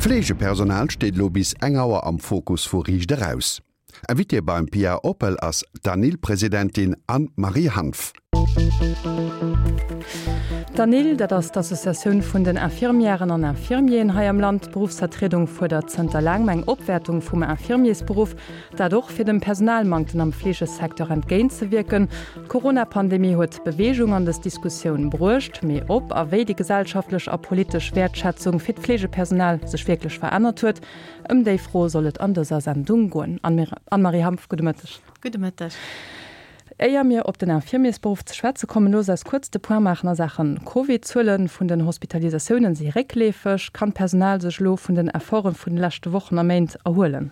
D'Fleegepersonal steet elo bis eng Auer am Fokus vu Riicht Eraus. Invitée beim Pia Oppel ass d'ANIL-Presidentin Anne-Marie Hanff. D'ANIL, dat ass d'Associatioun vun den Infirmièren an Infirmieren hei am Land. D'Beruffsvertriedung fuerdert zënter laangem eng Opwäertung vum Infirmiersberuff. Dat och fir dem Personalmanktem am Fleegesecteur entgéintzewierken. D'Corona-Pandemie huet Beweegung an dës Diskussioun bruecht. Mee ob a wéi déi gesellschaftlech a politesch Wäertschätzung fir d'Fleegepersonal sech wierklech verännert huet, ëm déi Fro soll et an dëser Sendung goen. Anne-Marie Hanff, gudde Mëtteg. Gudde Mëtteg. Éier mir op den Infirmiersberuff ze schwätze kommen, loosst eis kuerz de Point maachen a Saache Covid. D'Zuele vun den Hospitalisatiounen si réckleefeg. Kann d'Personal sech elo vun den Efforte vun de leschte Wochen a Méint erhuelen?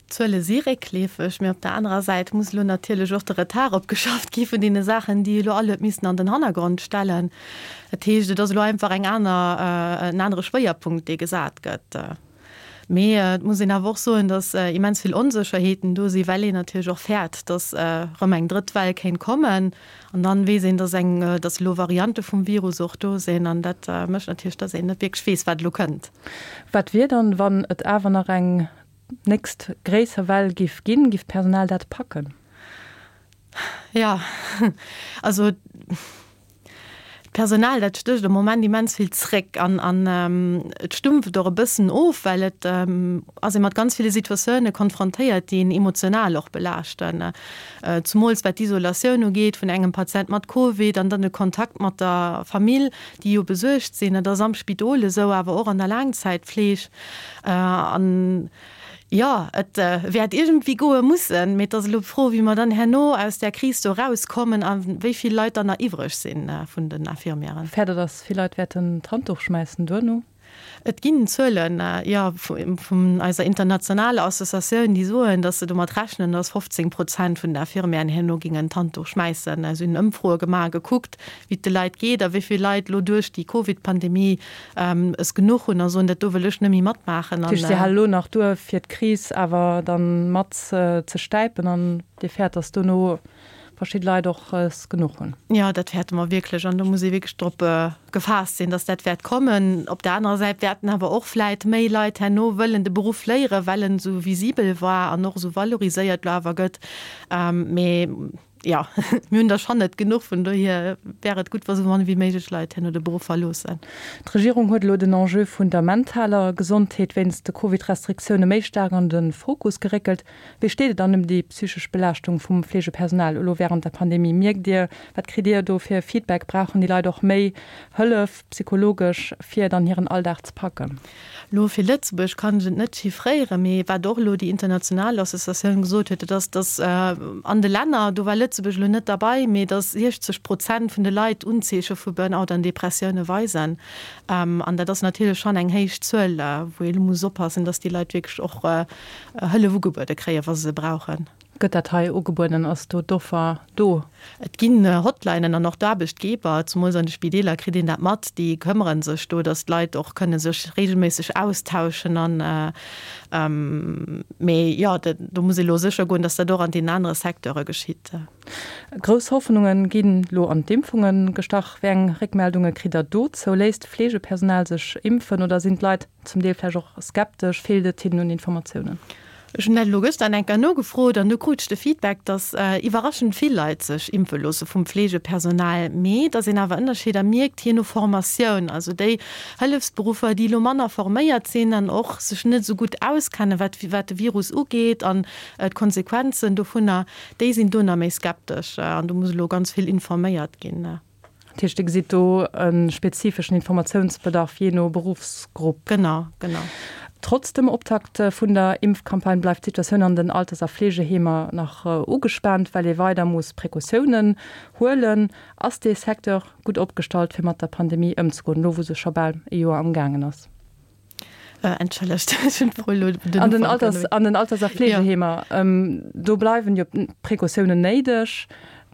D'Zuele si réckleefeg, mee op der anerer Säit muss elo natierlech och de Retard opgeschafft gi vun deene Saachen, déi elo all huet missen an den Hannergrond stellen. Dat heescht, et ass elo einfach eng aner, en anere Schwéierpunkt, dee gesat gëtt. Mee et muss een awer och soen, datt immens vill Onsécherheeten do sinn, well een natierlech och fäert, datt erëm eng drëtt Well kéint kommen. An dann weess een, datt eng, datt elo Variante vum Virus och do sinn. An dat mécht natierlech, datt een net wierklech weess, wat elo kënnt. Wat wier dann, wann et awer nach eng nächst gréisser Well giff ginn? Giff d'Personal dat packen? Jo, also d'Personal, dat stécht am Moment immens vill zréck an an et stumpft och e bëssen of, well et ass ee mat ganz ville Situatioune konfrontéiert, déi een emotional och belaaschten. Zumools wat d'Isolatioun ugeet vun engem Patient mat Covid an dann de Kontakt mat der Famill, déi jo besuergt sinn. Dat ass am Spidol esou, awer och an der Laangzäitfleeg. An jo, et wäert iergendwéi goe mussen, mee et ass elo d'Fro, wéi mer dann herno aus där Kris do erauskommen a wéi vill Leit dann nach iwwreg si vun den Infirmièren. Fäert Der, datt vill Leit wäerten d'Handduch schmäissen duerno? Et ginn Zuelen, jo, vun eiser internationaler Associatioun, déi soen, datt se domat rechnen, datt 15 Prozent vun den Infirmièren herno gingen d'Handduch schmäissen. Si hunn Ëmfroe gemaach a gekuckt, wéi et de Leit geet a wéi vill Leit elo duerch déi Covid-Pandemie es genuch hunn a soen, dat do wëll ech net méi matmaachen. Dat heescht, si hale elo nach duer, fir d'Kris awer dann mat ze stäipen an Dir fäert, datt dono verschidde Leit och es genuch hunn. Jo, dat fäerte mer wierklech an do muss ee wierklech drop gefaasst sinn, dass dat wäert kommen. Op der anerer Säit wäerten awer och vläit méi Leit herno wëllen de Beruff léieren, well en esou visibel war an och esou valoriséiert elo awer gëtt. Mee jo, mir hunn der schonn net genuch, vun dohier wär et gutt, wa sou mann wéi méiglech Leit herno de Beruff verloossen. D'Regierung huet elo den Enjeu vun der mentaler Gesondheet wéinst de Covid-Restriktioune méi staark an de Fokus geréckelt. Wéi steet et dann ëm déi psychesch Belaaschtung vum Fleegepersonal elo wärend der Pandemie? Mierkt Dir, wat kritt Dir do fir Feedback? Brauchen déi Leit och méi Hëllef psychologesch, fir dann hiren Alldag ze packen? Elo fir Lëtzebuerg kann ech et net chiffréieren, mee wat och elo déi international Associatioun gesot huet, dat ass, datt an de Länner, do war Lëtzebuerg elo net derbei, mee datt 60 Prozent vun de Leit Unzeeche vu Burnout an Depressioune weisen. An dat ass natierlech schonn eng héich Zuel, wou ee elo muss oppassen, datt déi Leit wierklech och Hëllef ugebuede kréien, wa se se brauchen. Gëtt dat hei ugebueden? Ass do d'Offer do? Et ginn Hotlinen an och d'Aarbechtgeber, zemools an de Spideeler kritt een dat mat, déi këmmere sech do, datt d'Leit och kënne sech reegelméisseg austauschen an, mee jo, do muss ee lo sécher goen, datt dat och an deenen anere Secteure geschitt. Grouss Hoffnunge ginn lo an d'Impfunge gestach. Wéi eng Réckmeldunge kritt Der dozou? Léisst d'Fleegepersonal sech impfen oder sinn d'Leit Zum Deel vläicht och skeptesch, feelt et hinnen un Informatiounen. Ech hunn dat elo gëschter eng Kéier nogefrot an do krut ech de Feedback, dass iwwerraschend vill Leit sech impfe loosse vum Fleegepersonal, mee dass een awer Ënnerscheeder mierkt jee no Formatioun. Also déi Hëllefsberuffer, déi elo manner forméiert sinn an och sech net esou gutt auskennen, wat wat de Virus ugeet an d'Konsequenzen dovunner, déi sinn do nach méi skeptesch an do muss elo ganz vill informéiert ginn. Dat heescht, Dir gesitt do e spezifeschen Informatiounsbedarf jee no Beruffsgrupp. Genau, genau. Trotz dem Optakt vun der Impfcampagne bleift d'Situatioun an den Alters a Fleegeheemer nach ugespaant, well ee weider muss Precautiounen huelen. Ass dee Secteur gutt opgestallt, fir mat der Pandemie ëmzegoen, elo wou se scho bal e Joer am gaangen ass? Entschëllegt, ech hunn d'Fro elo den An den Alters, an den Alters a Fleegeheemer, do bleiwen jo Precautiounen néideg.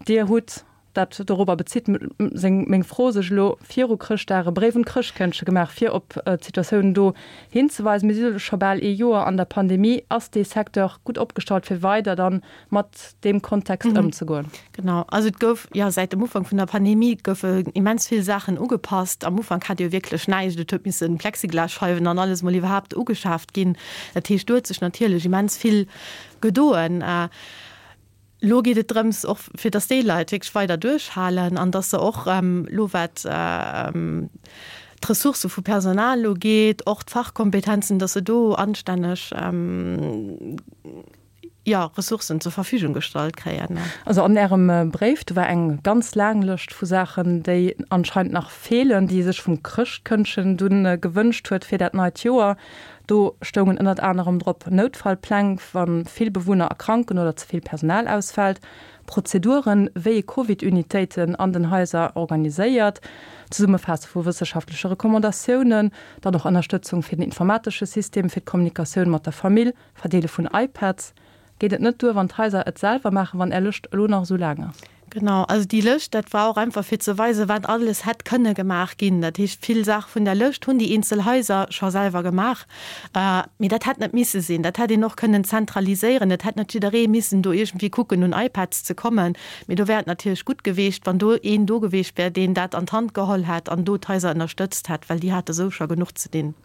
Dir hutt. Dat dorobber bezitt seng meng Fro sech elo viru Chrëschtdag e Bréif un d'Chrëschtkëndche gemaach, fir op d'Situatioun do hinzeweisen. Mir si elo scho bal ee Joer an der Pandemie. Ass dee Secteur gutt opgestallt, fir weider dann mat deem Kontext ëmzegoen? Genau, also et gouf, jo, säit dem Ufank vun der Pandemie goufe immens vill Saachen ugepasst. Am Ufank hat Dir jo wierklech näischt. Et huet misse Plexiglasscheiwen an alles mol iwwerhaapt ugeschaaft ginn. Dat heescht, do huet sech natierlech immens vill gedoen. Lo geet et drëms, och fir datt déi Leit wierklech weider duerchhalen an datt se och elo wat d'Ressourcë vu Personal ugeet, och d'Fachkompetenzen, datt se do anstänneg, jo, Ressourcen zur Verfügung gestallt kréien. Also an Ärem Bréif, do war eng ganz laang Lëscht vu Saachen, déi anscheinend nach feelen, déi ee sech vum Chrëschtkëndchen dunn gewënscht huet fir dat neit Joer. Do stoungen ënnert anerem drop, Noutfallpläng, wa vill Bewunner erkranken oder ze vill Personal ausfält, Prozeduren, wéi ee Covid-Unitéiten an den Haiser organiséiert, Zesummefaasse vu wësseschaftleche Recommandatiounen, dann och Ënnerstëtzung fir den informatesche System fir d'Kommunikatioun mat der Famill, Verdeele vun iPads. Geet et net duer, wann d'Haiser et selwer maachen, wann Är Lëscht elo nach esou laang ass? Genau, also déi Lëscht, dat war och einfach fir ze weisen, wat alles hätt kënne gemaach ginn. Dat heescht, vill Saache vun der Lëscht hunn déi eenzel Haiser scho selwer gemaach. Mee dat hätt net misse sinn. Dat hätt een och kënnen zentraliséieren. Et hätt net jidderee missen do iergendwéi kucken, un iPads ze kommen. Mee do wär et natierlech gutt geweecht, wann do een do geweecht wär, deen dat an d'Hand geholl hätt an do d'Haiser ënnerstëtzt hätt, well déi hate sou scho genuch ze dinn.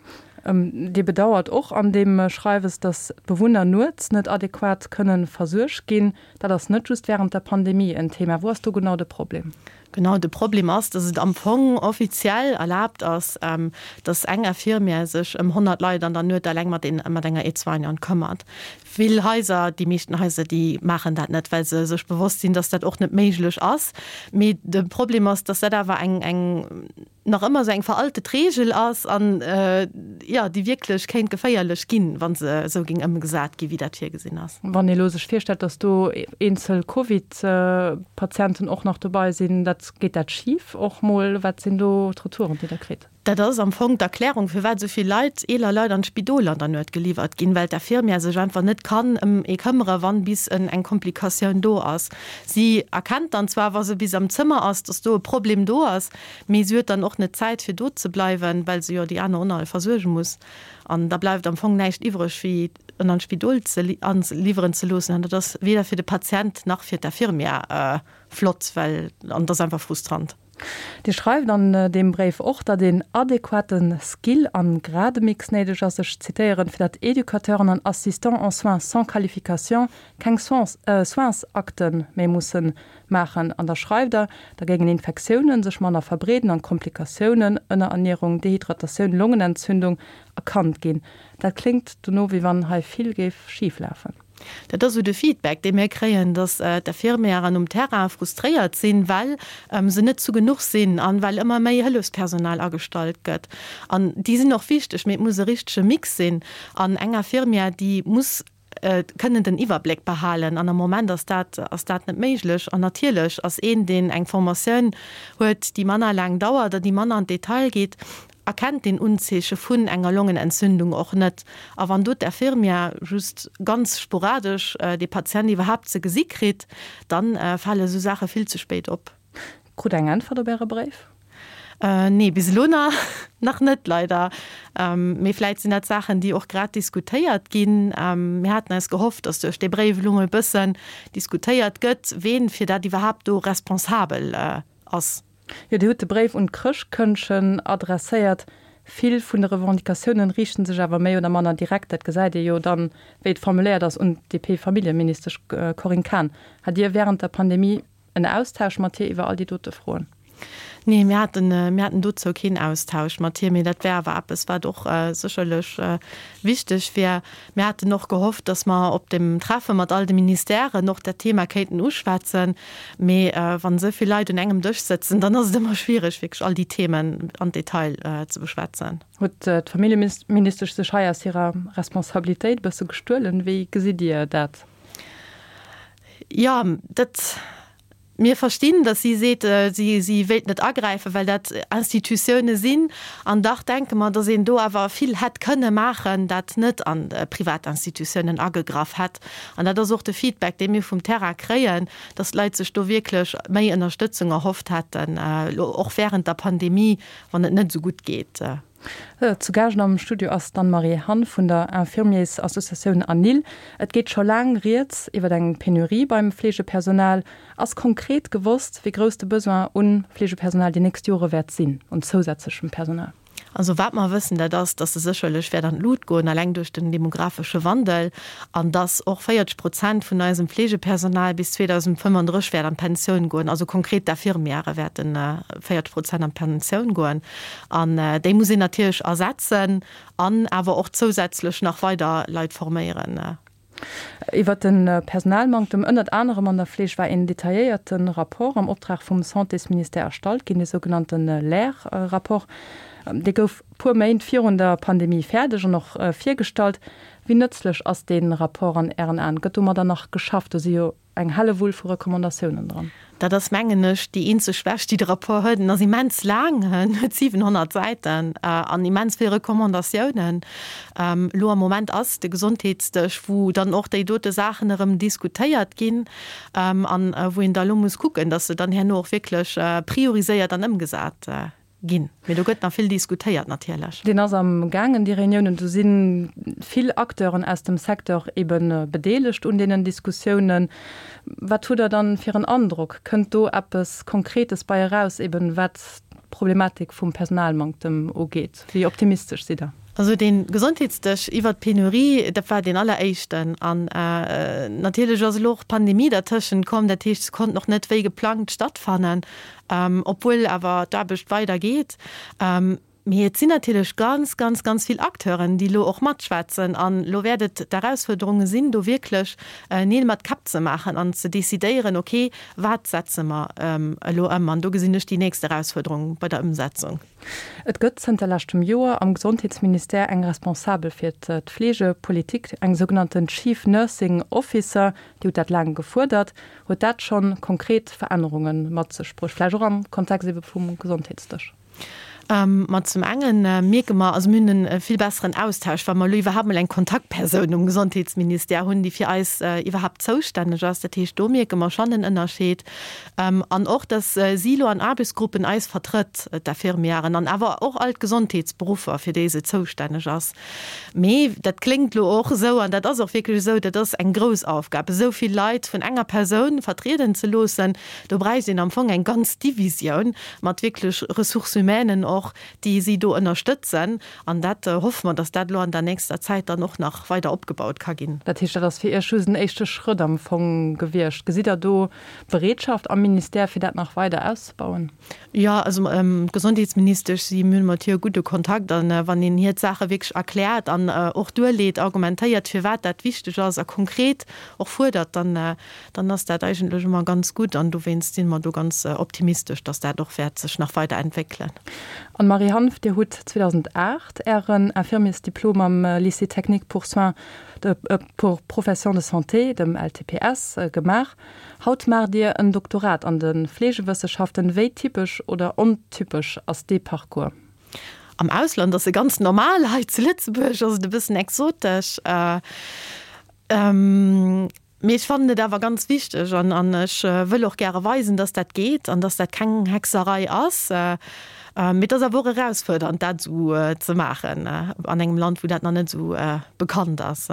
Dir bedauert och an deem Schreiwes, datt d'Bewunner nuets net adequat kënne versuergt ginn. Dat ass net just wärend der Pandemie en Thema. Wou ass do genau de Problem? Genau, de Problem ass, datt et am Fong offiziell erlaabt ass, datt eng Infirmière sech ëm 100 Leit an der Nuet eleng mat enger Aide-soignante këmmert. Vill Haiser, déi meeschten Haiser, déi maachen dat net, well se sech bewosst sinn, datt dat och net méiglech ass. Mee de Problem ass, datt dat awer eng nach ëmmer esou eng veraltet Reegel ass an, jo, déi wierklech kéint geféierlech ginn, wa se esou géing ëmgesat ginn, wéi dat virgesinn ass. Wann ee elo sech virstellt, datt do eenzel Covid-Patienten och nach dobei sinn, dat, geet dat schif och mol? Wat sinn do d'Retouren, déi Der kritt? Dat ass am Fong d'Erklärung, firwat esou vill Leit, eeler Leit an d'Spidol an der Nuet geliwwert ginn, well d'Infirmière sech einfach net kann ëm ee këmmere wann bis eng Komplikatioun do ass. Si erkennt dann zwar, wa se bis am Zëmmer ass, datt do e Problem do ass, Mee si huet dann och net d'Zäit fir do ze bleiwen, well se jo déi aner och nach versuerge muss. An da bleift am Fong näischt iwwreg wéi en an d'Spidol ze liwweren ze loossen. An dat ass weder fir de Patient nach fir d'Infirmière flott, well an et ass einfach frustrant. Dir schreift an deem Bréif och, datt een adequate Skill an Grademix néideg ass, ech zitéieren, fir datt Educateuren an Assistants en soins sans qualification keng Soinsakte méi mussen maachen. An da schreift Der, da géingen Infektiounen sech manner verbreeden an Komplikatiounen, Ënnerernierung, Dehydratatioun, Longenentzündung, erkannt ginn. Dat kléngt dono, wéi wann hei vill géif schif lafen. Dat ass esou de Feedback, dee mir kréien, datt d'Infirmièren um Terrain frustréiert sinn, well se net zu genuch sinn an well ëmmer méi Hëllefspersonal agestallt gëtt. An déi sinn och wichteg, mee et muss e richtege Mix sinn. An eng Infirmière, déi muss kënnen den Iwwerbléck behalen an am Moment ass dat ass dat net méiglech. An natierlech ass een, deen eng Formatioun huet, déi manner laang dauert a déi manner an d'Detail geet, erkennt deen Unzeeche vun enger Longenentzündung och net. A wann do d'Infirmière just ganz sporadesch dee Patient iwwerhaapt ze gesi kritt, da fale esou Saache vill ze spéit op. Krut Der eng Äntwert op Äre Bréif? Nee, bis elo nach net, leider. Mee vläit sinn dat Saachen, déi och grad diskutéiert ginn. Mir haten eis gehofft, datt duerch dee Bréif elo mol e bëssen diskutéiert gëtt, ween fir dat iwwerhaapt do responsabel ass. Jo, Dir hutt de Bréif un d'Chrëschtkëndchen adresséiert. Vill vun de Revendicatiounen riichten sech awer méi oder manner direkt, dat gesäit ee jo dann, wéi et formuléiert ass, un d'DP-Familljeministesch Corinne Cahen. Hat Dir wärend der Pandemie En Austausch mat hir iwwer all déi dote Froen? Nee, mir haten, mir haten dozou keen Austausch mat hir, mee dat wär awer eppes, wat och sécherlech wichteg wär. Mir haten och gehofft, datt mer op dem Treffe mat all de Ministèren och dat Thema kéinten uschwätzen. Mee wann esou vill Leit un engem Dësch sëtzen, dann ass et ëmmer schwiereg, wierklech all déi Themen an Detail ze beschwätzen. Huet d'Familljeministesch sech hei aus hirer Responsabilitéit e bësse gestuelen? Wéi gesitt Dir dat? Jo, dat. Mir verstinn, datt si seet, si si wéilt net agräifen, well dat Institutioune sinn. An dach denke mer, datt een do awer vill hätt kënne maachen, dat net an privat Institutiounen agegraff hätt. An dat ass och de Feedback, dee mir vum Terrain kréien, datt d'Leit sech do wierklech méi Ënnerstëtzung erhofft hätten, elo och wärend der Pandemie, wann et net esou gutt geet. Zu Gaascht am Studio ass d'Anne-Marie Hanff vun der Infirmiersassociatioun ANIL. Et geet scho laang rieds iwwer eng Penurie beim Fleegepersonal. Ass konkret gewosst, wéi grouss de Besoin un Fleegepersonal déi nächst Jore wäert sinn, un zousätzlechem Personal? Also wat mer wëssen, dat ass, dass se sécherlech wäert an d'Lut goen, eleng duerch den demografesche Wandel, an dass och 40 Prozent vun eisem Fleegepersonal bis 2035 wäert an d'Pensioun goen. Also konkret d'Infirmièrë wäerte 40 Prozent an d'Pensioun goen. An déi muss een natierlech ersetzen an awer och zousätzlech nach weider Leit forméieren. Iwwert de Personalmanktem, ënnert anerem an der Fleeg, war een detailléierte Rapport am Optrag vum Santésministère erstallt ginn, de sougenannte LAIR-Rapport. Dee gouf puer Méint virun der Pandemie fäerdeg an och virgestallt. Wéi nëtzlech ass dee Rapport an Ären Aen? Gëtt domadder nach geschafft? Do si jo Eng Hellewull vu Recommandatiounen dran. Dat ass, mengen ech, déi eenzeg Schwächt, déi de Rapport huet. En ass immens laang, en huet 700 Säiten an immens vill Recommandatiounen. Elo am Moment ass de Gesondheetsdësch, wou dann och déi dote Saachen erëm diskutéiert ginn an wou een da elo muss kucken, datt se dann herno och wierklech prioriséiert an ëmgesat Ginn. Mee do gëtt nach vill diskutéiert natierlech. Deen ass am gaangen, déi Reuniounen. Do si vill Acteuren aus dem Secteur ebe bedeelegt un deenen Diskussiounen. Wat hutt Der dann fir en Androck? Kënnt do eppes Konkretes bei eraus, eben wat d'Problematik vum Personalmanktem ugeet? Wéi optimistesch sidd Der? Also dee Gesondheetsdësch iwwert d'Penurie, dat war deen alleréischten. An natierlech ass elo och d'Pandemie dertëschent komm. Dat heescht, se konnten och net wéi geplangt stattfannen. Obwuel awer d'Aarbecht weider geet. Mee et sinn natierlech ganz, ganz, ganz vill Acteuren, déi elo och matschwätzen. An elo wäert et d'Erausfuerderunge sinn, do wierklech Neel mat Käpp ze maachen an ze decidéieren, okay, wat setze mer elo ëm? An do gesinn ech déi nächst Erausfuerderung bei der Ëmsetzung. Et gëtt zënter leschtem Joer am Gesondheetsministère eng Responsabel fir d'Fleegepolitik, eng sougenannten Chief Nursing Officer. Dir hutt dat laang gefuerdert. Huet dat schonn konkret Verännerunge mat sech bruecht, vläicht och am Kontext ebe vum Gesondheetsdësch? Ma zum enge mierke mer, also mir hunn e vill besseren Austausch, well mer elo iwwerhaapt mol eng Kontaktpersoun um Gesondheetsministère hunn, déi fir eis iwwerhaapt zoustänneg ass. Dat heescht, do mierke mer schonn en Ënnerscheed. An och, datt si elo an Aarbechtsgruppen eis vertrëtt, d'Infirmièren an awer och all d'Gesondheetsberuffer, fir déi se zoustänneg ass. Mee dat kléngt elo och esou, an dat ass och wierklech esou, dat ass eng grouss Aufgab, esou vill Leit vun enger Persoun vertrieden ze loossen. Do bräicht een am Fong eng ganz Divisioun mat wierklech Ressources humainen och, déi si do ënnerstëtzen. An dat hoffe mer, datt dat elo an der nächster Zäit dann och nach weider opgebaut ka ginn. Dat heescht, dat ass fir Iech just en éischte Schrëtt am Fong gewiescht. Gesitt Der do Bereetschaft am Ministère, fir dat nach weider auszebauen? Jo, also d'Gesondheetsministesch, si mir hunn mat hir e gudde Kontakt an wann een hir d'Saache wierklech erkläert an och duerleet, argumentéiert, firwat dat wichteg ass a konkret och fuerdert, dann, dann ass dat eigentlech ëmmer ganz gutt an dowéinst si mer do ganz optimistesch, datt dat och wäert sech nach weider entwéckelen. Anne-Marie Hanff, Dir hutt 2008 Ären Infirmiersdiplom am Lycée technique pour soins de, pour professions de santé, dem LTPS, gemaach. Haut maacht Dir en Doktorat an de Fleegewësseschaften. Wéi typesch oder ontypesch ass dee Parcours? Am Ausland ass e ganz normal, hei zu Lëtzebuerg ass et e bëssen exotesch. Mee ech fannen et awer ganz wichteg an an ech wëll och gäre weisen, dass dat geet an dass dat keng Hexerei ass. Mee et ass awer och erausfuerdernd, dat esou ze maachen an engem Land, wou dat nach net esou bekannt ass.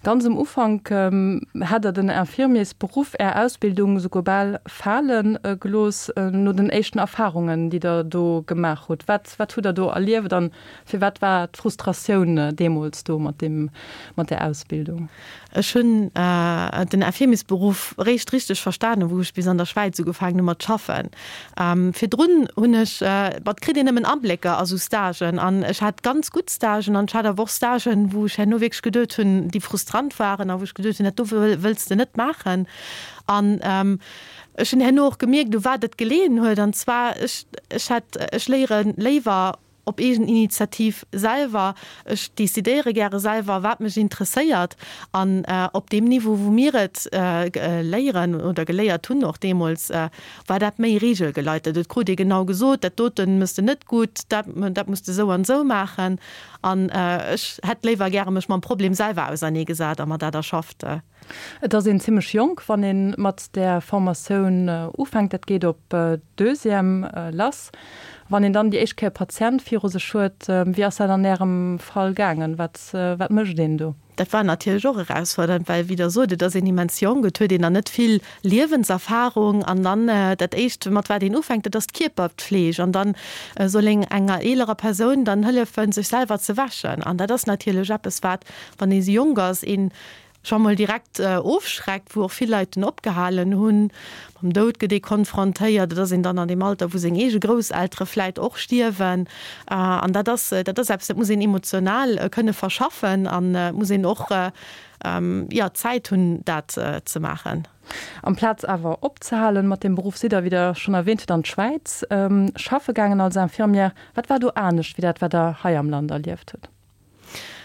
Ganz um Ufank hätt Der den Infirmiersberuff, Är Ausbildung, souguer bal fale gelooss, no den éischten Erfarungen, déi Der do gemaach hutt. Wat, wat hutt Der do erlieft an firwat war d'Frustratioun deemools do mat deem, mat där Ausbildung? Ech hunn den Infirmiersberuff réischt richteg verstanen, wou ech bis an der Schwäiz ugefaangen hu mat schaffen. Virdrun hunn ech, ma et kritt een nëmmen Ablécker a sou Stagen an ech hat ganz gutt Stagen an ech hat awer och Stagen, wou ech herno wierklech geduet hunn, déi frustrant waren a wou ech geduet hunn, dat do wëlls de net maachen. An ech hunn herno och gemierkt, u wat et geleeën huet an zwar, ech, ech hat, ech léiere léiwer. op eegen Initiativ selwer. Ech decidéiere gäre selwer, wat mech interesséiert. An op deem Niveau, wou mir et léieren oder geléiert hunn och deemools, war dat méi regelgeleitet. Et krut ee genau gesot, dat dote mëss de net gutt, dat, dat muss de esou an esou maachen. An ech hätt léiwer gäre mech mam Problem selwer auserneegesat a mer dat erschafft. Et ass een zimmlech jonk, wann ee mat där Formatioun ufänkt. Dat geet op Deuxième lass. Wann een dann déi éischt Kéier e Patient viru sech huet, wéi ass dat an Ärem Fall gaangen? Wat, wat mécht een do? Dat war natierlech och erausfordernd, well, wéi Der sot, et ass een immens jonk, et huet een nach net vill Liewenserfarung an dann dat Éischt, mat wat een ufänkt, dat ass d'Kierperpfleg an dann soll een enger eelerer Persoun dann hëllefen, sech selwer ze wäschen. An dat ass natierlech eppes, wat, wann ee jonk ass, een scho mol direkt ofschreckt, wou och vill Leit dunn opgehalen hunn. Mam Doud gëtt ee konfrontéiert, et ass een dann an deem Alter, wou seng eege Grousseltere vläit och stierwen. An dat ass, dat ass eppes, dat muss een emotional kënne verschaffen an et muss een och, jo, d'Zäit hunn, dat ze maachen. Amplaz awer opzehalen mat deem Beruff, sidd Der, wéi Der schonn erwähnt hutt, an d'Schwäiz schaffe gaangen als Infirmière. Wat war do anescht wéi dat, wat Der hei am Land erlieft hutt?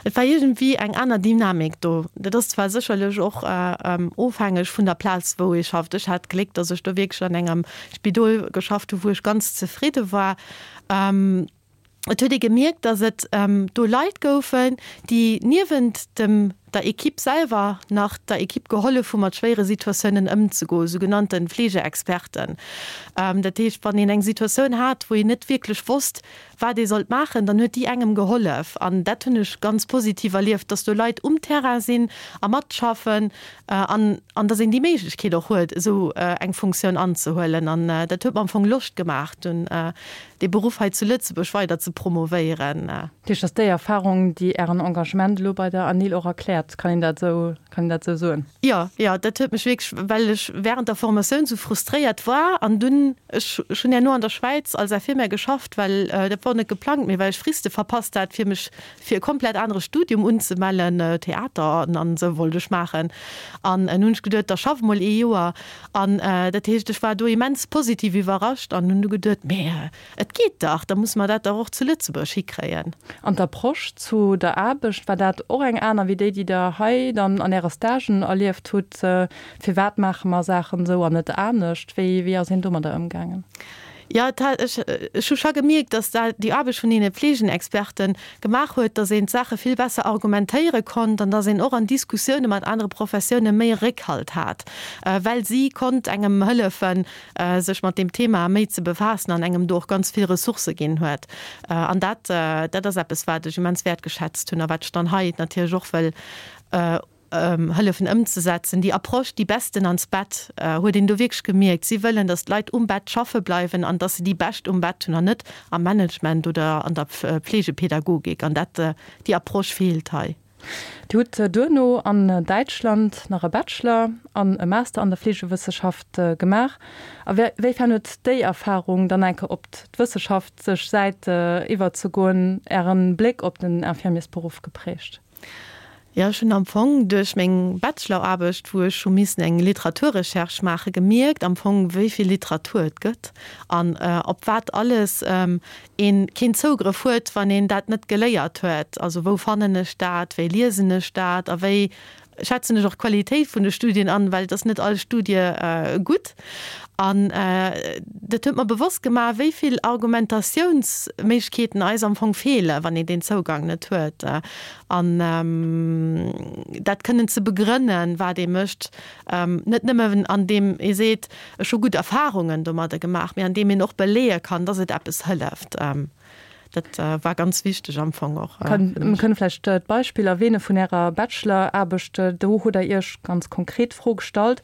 Et war iergendwéi eng aner Dynamik do. Dat ass zwar sécherlech och ofhängeg vun der Plaz, wou ee schafft. Ech hat d'Gléck, datt ech do wierklech an engem Spidol geschafft hu wou ech ganz zefridde war. Et huet ee gemierkt, datt et do Leit goufen, déi niewent dem der Equipe selwer nach der Equipe gehollef hu mat schwéiere Situatiounen ëmzegoen, sou genannte Fleegeexperten. Dat heescht, wann een eng Situatioun hat, wou een net wierklech wosst, wat ee sollt maachen, dann huet déi engem gehollef. An dat hunn ech ganz positiv erlieft, dass do Leit um Terrain sinn a matschaffen an an dass een déi Méiglechkeet och huet, esou eng Funktioun anzehuelen. An dat huet mer am Fong Loscht gemaach, dunn dee Beruff hei zu Lëtzebuerg weider ze promovéieren. Dat heescht, dass déi Erfahrung, déi Ären Engagement elo bei der ANIL och erkläert, kann een dat esou, kann een dat esou soen? Jo, jo, dat huet mech wierklech, well ech während der Formatioun esou frustréiert war an dunn, ech hunn herno an der Schwäiz als Infirmière geschafft, well dat wor net geplangt, mee well ech Friste verpasst hat, fir mech fir e komplett anere Studium unzemellen, Theater an esou wollt ech maachen. An hunn ech geduet, da schaff mol ee Joer. An dat heescht, ech war do immens positiv iwwerrascht an hunn du geduet, mee Et geet dach, da musse mer dat dach och zu Lëtzebuerg hikréien. An d'Approche zu der Aarbecht, war dat och eng aner wéi déi, déi Der hei dann an Äre Stagen erlieft hutt? Firwat maache mer Saachen esou an net anescht? Wéi, wéi ass een domadder ëmgaangen? Jo, et hat, ech, ech hu scho gemierkt, datt dat, déi Aarbecht vun deene Pflegenexperten gemaach huet, datt een d'Saache vill besser argumentéiere konnt an datt een och an Diskussioune mat anere Professioune méi Réckhalt hat, well si konnt engem hëllefen, sech mat deem Thema méi ze befaassen an engem do och ganz vill Ressourcë ginn huet. An dat, dat ass eppes, wat ech immens wäertgeschätzt hunn a wat ech dann hei natierlech och wëll hëllefen ëmzesetzen. Déi Approche, déi Besten ans Bett, huet een do wierklech gemierkt. Si wëllen, datt d'Leit um Bett schaffe bleiwen an datt se déi Bescht um Bett hunn an net am Management oder an der Pflegepädagogik. An dat, déi Approche feelt hei. Dir hutt duerno an Däitschland nach e Bachelor an e Master an der Fleegewësseschaft gemaach. A wéifern huet déi Erfarung, dann eng Kéier op d'wësseschaftlesch Säit iwwerzegoen, Ären Bléck op den Infirmiersberuff geprägt? Jo, ech hunn am Fong duerch meng Bacheloraarbecht, wou ech hu missen eng Literaturrecherche maachen, gemierkt am Fong, wéi vill Literatur et gëtt an op wat alles een keen Zougrëff huet, wann een dat net geléiert huet. Also wou fannen ech dat, wéi liesen ech dat a wéi schätzen ech och d'Qualitéit vun de Studien an, well et ass net all Studie gutt. An dat huet mer bewosst gemaach, wéi vill Argumentatiounsméiglechkeeten eis am Fong feelen, wann een deen Zougang net huet. An dat kënnen ze begrënnen, wat ee mécht, net nëmmen andeem ee seet, Ech hu gutt Erfahrungen domadder gemaach, mee andeem een och beleeë kann, dass et eppes hëlleft. Dat war ganz wichteg am Fong och. Mir kënne vläicht d'Beispill erwähne vun Ärer Bachelor-Aarbecht. Do hutt Der Iech ganz konkret d'Fro gestallt,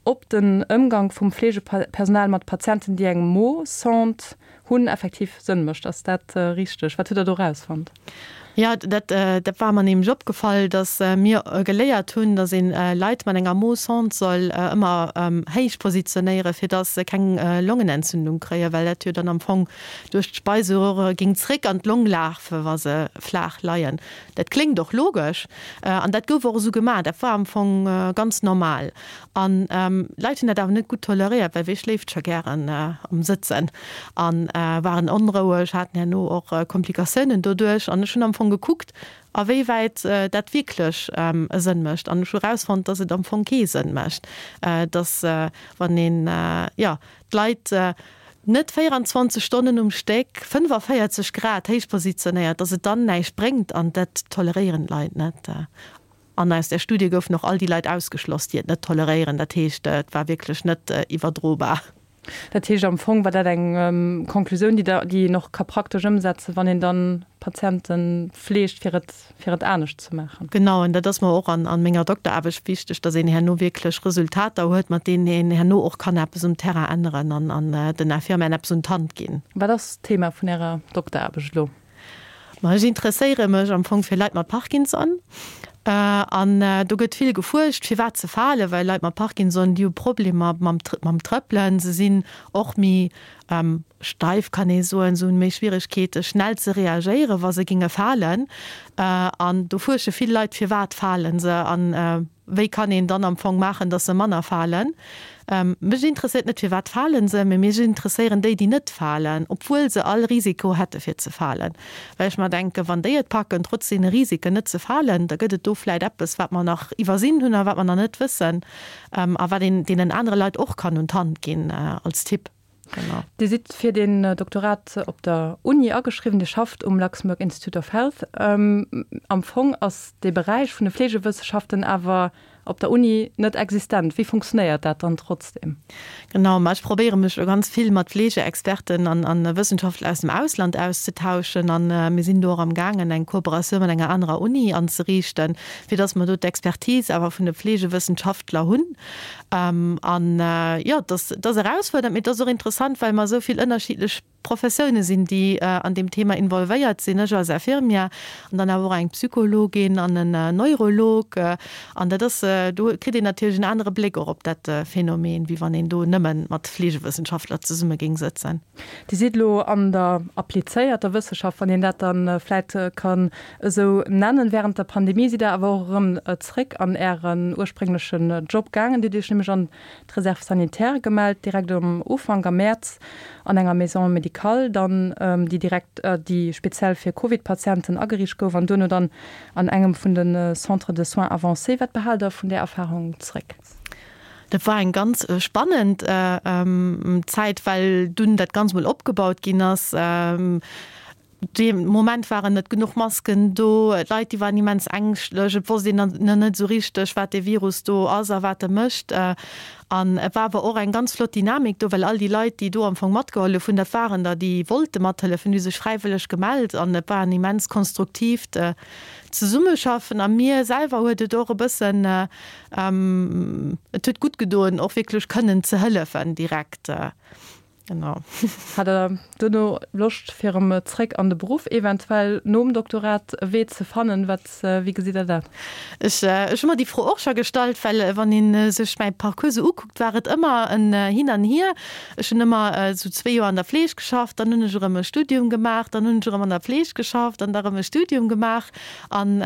ob den Ëmgank vum Fleegepersonal mat Patienten, déi eng Mo-Sonde hunn, effektiv Sënn mécht. Ass dat richteg? Wat hutt Der do erausfonnt? Jo, dat, dat war mer nämlech opgefall, dass mir geléiert hunn, dass een Leit mat enger Mo-Sonde soll ëmmer héich positionéieren, fir dass se keng Longenentzündung kréien, well dat jo dann am Fong duerch d'Speiseröhre géing zréck an d'Long lafe wa se flaach leien. Dat kléngt och logesch an dat gouf och esou gemaach. Dat war am Fong ganz normal. An Leit hunn dat awer net gutt toleréiert, well wie schléift scho gären am Sëtzen a waren onroueg, haten herno och Komplikatiounen doduerch. An ech hunn am Fong gekuckt, a wéi wäit dat wierklech e Sënn mécht. An ech hu erausfonnt, dass et am Fong kee Sënn mécht, dass wann een, jo, d'Leit net 24 Stonnen um Stéck 45 Grad héich positionéiert, dass et dann näischt bréngt. An dat toleréieren d'Leit net. An aus där Studie goufen och all déi Leit ausgeschloss, déi et net toleréieren. Dat heescht, et war wierklech net iwwerdrobar. Dat heescht, am Fong war dat eng Konklusioun, déi der, déi een och ka praktesch ëmsetzen, wann een dann Patiente fleegt, fir et, fir et anescht ze maachen. Genau, an dat ass mer och an, an menger Dokteraarbecht wichteg, dass een herno wierklech Resultater huet, mat deenen een herno och kann eppes um Terrain änneren an, an den Infirmieren eppes un d'Hand ginn. Wat ass d'Thema vun Ärer Dokteraarbecht elo? Ma ech interesséiere mech am Fong fir Leit mat Parkinson. An do gëtt vill gefuerscht, firwat se falen, well Leit mat Parkinson, déi hu Problemer mam mam Trëppelen. Se sinn och méi steif, kann ee soen. Se hunn méi Schwieregkeete schnell ze reagéieren, wa se géinge falen. An do fuersche vill Leit, firwat fale se an Wéi kann een dann am Fong maachen, dass se manner falen? Mech interesséiert net, firwat falen se, mee mech interesséieren déi, déi net falen, obwuel se all Risiko hätte fir ze falen. Well ech mer denken, wann déi et packen, trotz deene Risiken net ze falen, da gëtt et do vläit eppes, wat mer nach iwwersinn hunn a wat mer nach net wëssen a wat een deenen anere Leit och kann un d'Hand ginn als Tipp. Genau. Dir sidd fir den Doktorat op der Uni ageschriwwen, Dir schafft um Luxembourg Institute of Health. Am Fong ass dee Beräich vun de Fleegewësseschaften awer op der Uni net existent. Wéi funktionéiert dat dann trotzdem? Genau, ma ech probéiere mech elo ganz vill mat Fleegeexperten an a Wëssenschaftler aus dem Ausland auszetauschen an mir sinn do och am gaangen eng Kooperatioun mat enger anerer Uni anzeriichten, fir datt mer do d'Expertise awer vun de Fleegewëssenschaftler hunn. An jo, et ass, et ass erausfuerdernd, mee et ass och interessant, well mer esou vill ënnerschiddlech Professioune sinn, déi an deem Thema involvéiert sinn. Ech als Infirmière an dann awer och eng Psychologin an en Neurolog. An dat ass, do kritt een natierlech en anere Bléck och op dat Phänomen, wéi wann een do nëmme mat Fleegewëssenschaftler zesumme géing sëtzen. Dir sidd elo an der applizéierter Wëssenschaft, wann een dat da vläit kann esou nennen. Während der Pandemie sidd Der awer och erëm zréck an Ären ursprénglechen Job gaangen. Dir hutt Iech nämlech an d'Réserve sanitaire gemellt, direkt um Ufank am Mäerz an enger Maison médicale dann, déi direkt, déi speziell fir Covid-Patienten ageriicht gouf an duerno dann an engem vun de Centres de soins avancés. Wat behaalt Der vun där Erfarung zréck? Dat war eng ganz spannend Zäit, well dunn dat Ganzt mol opgebaut ginn ass. Dee Moment waren net genuch Masken do, d'Leit déi waren immens ängschtlech, et wosst een nach net esou richteg, wat dee Virus do ass a wat e mécht. An et war awer och eng ganz flott Dynamik do, well all déi Leit, déi do am Fong matgehollef hunn, dat waren der, déi wollte mathëllefen, déi hu sech fräiwëlleg gemellt an et war en immens konstruktiivt Zesummeschaffen. A mir selwer huet et och e bëssen, et huet gutt gedoen, och wierklech kënnen ze hëllefen direkt. Genau. Hat Der duerno Loscht fir erëm zréck an de Beruff, eventuell nom Doktorat e Wee ze fannen? Wat, wéi gesitt Der dat? Ech, ech hu mer déi Fro och scho gestallt, well wann ee sech mäi Parcours esou ukuckt, war et ëmmer en Hin an Hier. Ech hunn ëmmer esou zwee Joer an der Fleeg geschafft, dann hunn ech erëm e Studium gemaach, dann hunn ech erëm an der Fleeg geschafft an da erëm e Studium gemaach. An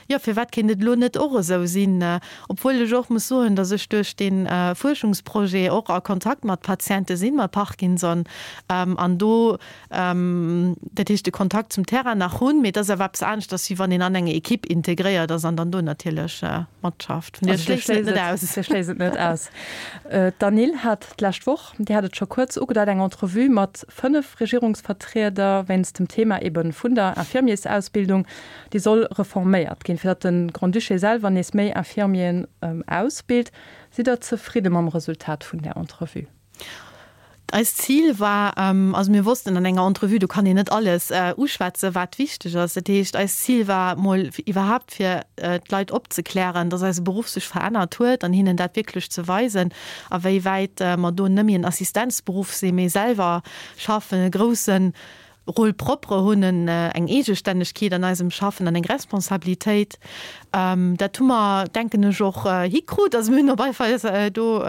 Jo, firwat kéint et elo net och esou sinn? Obwuel ech och muss soen, datt ech duerch dee Fuerschungsprojet och a Kontakt mat Patiente sinn, mat Parkinson, an do, dat heescht de Kontakt zum Terrain nach hunn. Mee et ass awer eppes aneschters, wéi wann een an eng Equipe integréiert ass an dann do natierlech matschafft. Vun deeër schléissen et net aus. Dir schléisst et net aus. D'Anil hat d'lescht Woch, Dir hat et scho kuerz ugedeit, eng Entrevue mat 5 Regierungsvertrieder wéinst dem Thema ebe vun der Infirmiersausbildung. Déi soll reforméiert ginn, fir datt de Grand-Duché selwer nees méi Infirmieren ausbilt. Sidd Der zefridde mam Resultat vun där Entrevue? Eist Zil war, also mir wossten, an enger Entrevue, do kann een net alles uschwätzen, wat wichteg ass. Dat heescht, eist Zil war mol iwwerhaapt fir d'Leit opzeklären, datt eise Beruff sech verännert huet an hinnen dat wierklech ze weisen, a wéi wäit mer do net méi en Assistenzberuff sinn, mee selwer schaffen, e groussen. Rôle propre hunn, eng Eegestännegkeet an eisem Schaffen an eng Responsabilitéit. Dat hu mer, denken ech, och hikrut. Also mir hunn op alle Fall do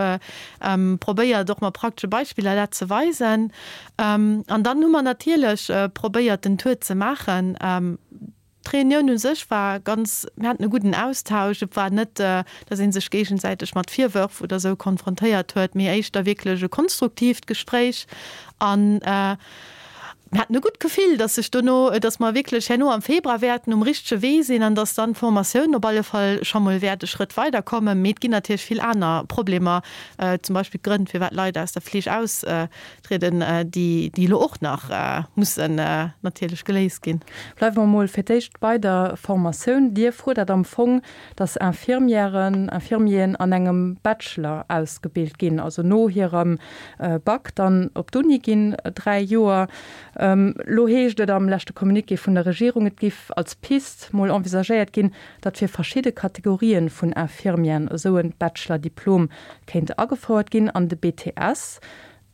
probéiert, och mat praktesche Beispiller dat ze weisen. An dann hu mer natierlech probéiert, den Tour ze maachen. D'Reunioun u sech war ganz, mir haten e gudden Austausch. Et war net, datt ee sech géigesäiteg mat Virwërf oder esou konfrontéiert huet, mee éischter wierklech e konstruktiivt Gespréich. An mir haten e gutt Gefill, datt sech dono, datt mer wierklech herno am Februar wäerten um richtege Wee sinn an datt dann d'Formatioun op alle Fall scho mol wäert e Schrëtt weiderkommen. Mee et ginn natierlech vill aner Problemer, zum Beispill d'Grënn, firwat Leit aus der Fleeg aus Trieden, déi elo och nach mussen natierlech geléist ginn. Bleiwe mer emol fir d'éischt bei der Formatioun. Dir fuerdert am Fong, dass Infirmièren, Infirmieren an engem Bachelor ausgebilt ginn, also no hirem Bac dann op d'Uni ginn, 3 Joer. Elo heescht et am leschte Communiqué vun der Regierung, et giff als Pist mol envisagéiert ginn, datt fir verschidde Kategorien vun Infirmieren esou e Bachelor-Diplom kéint agefouert ginn an de BTS,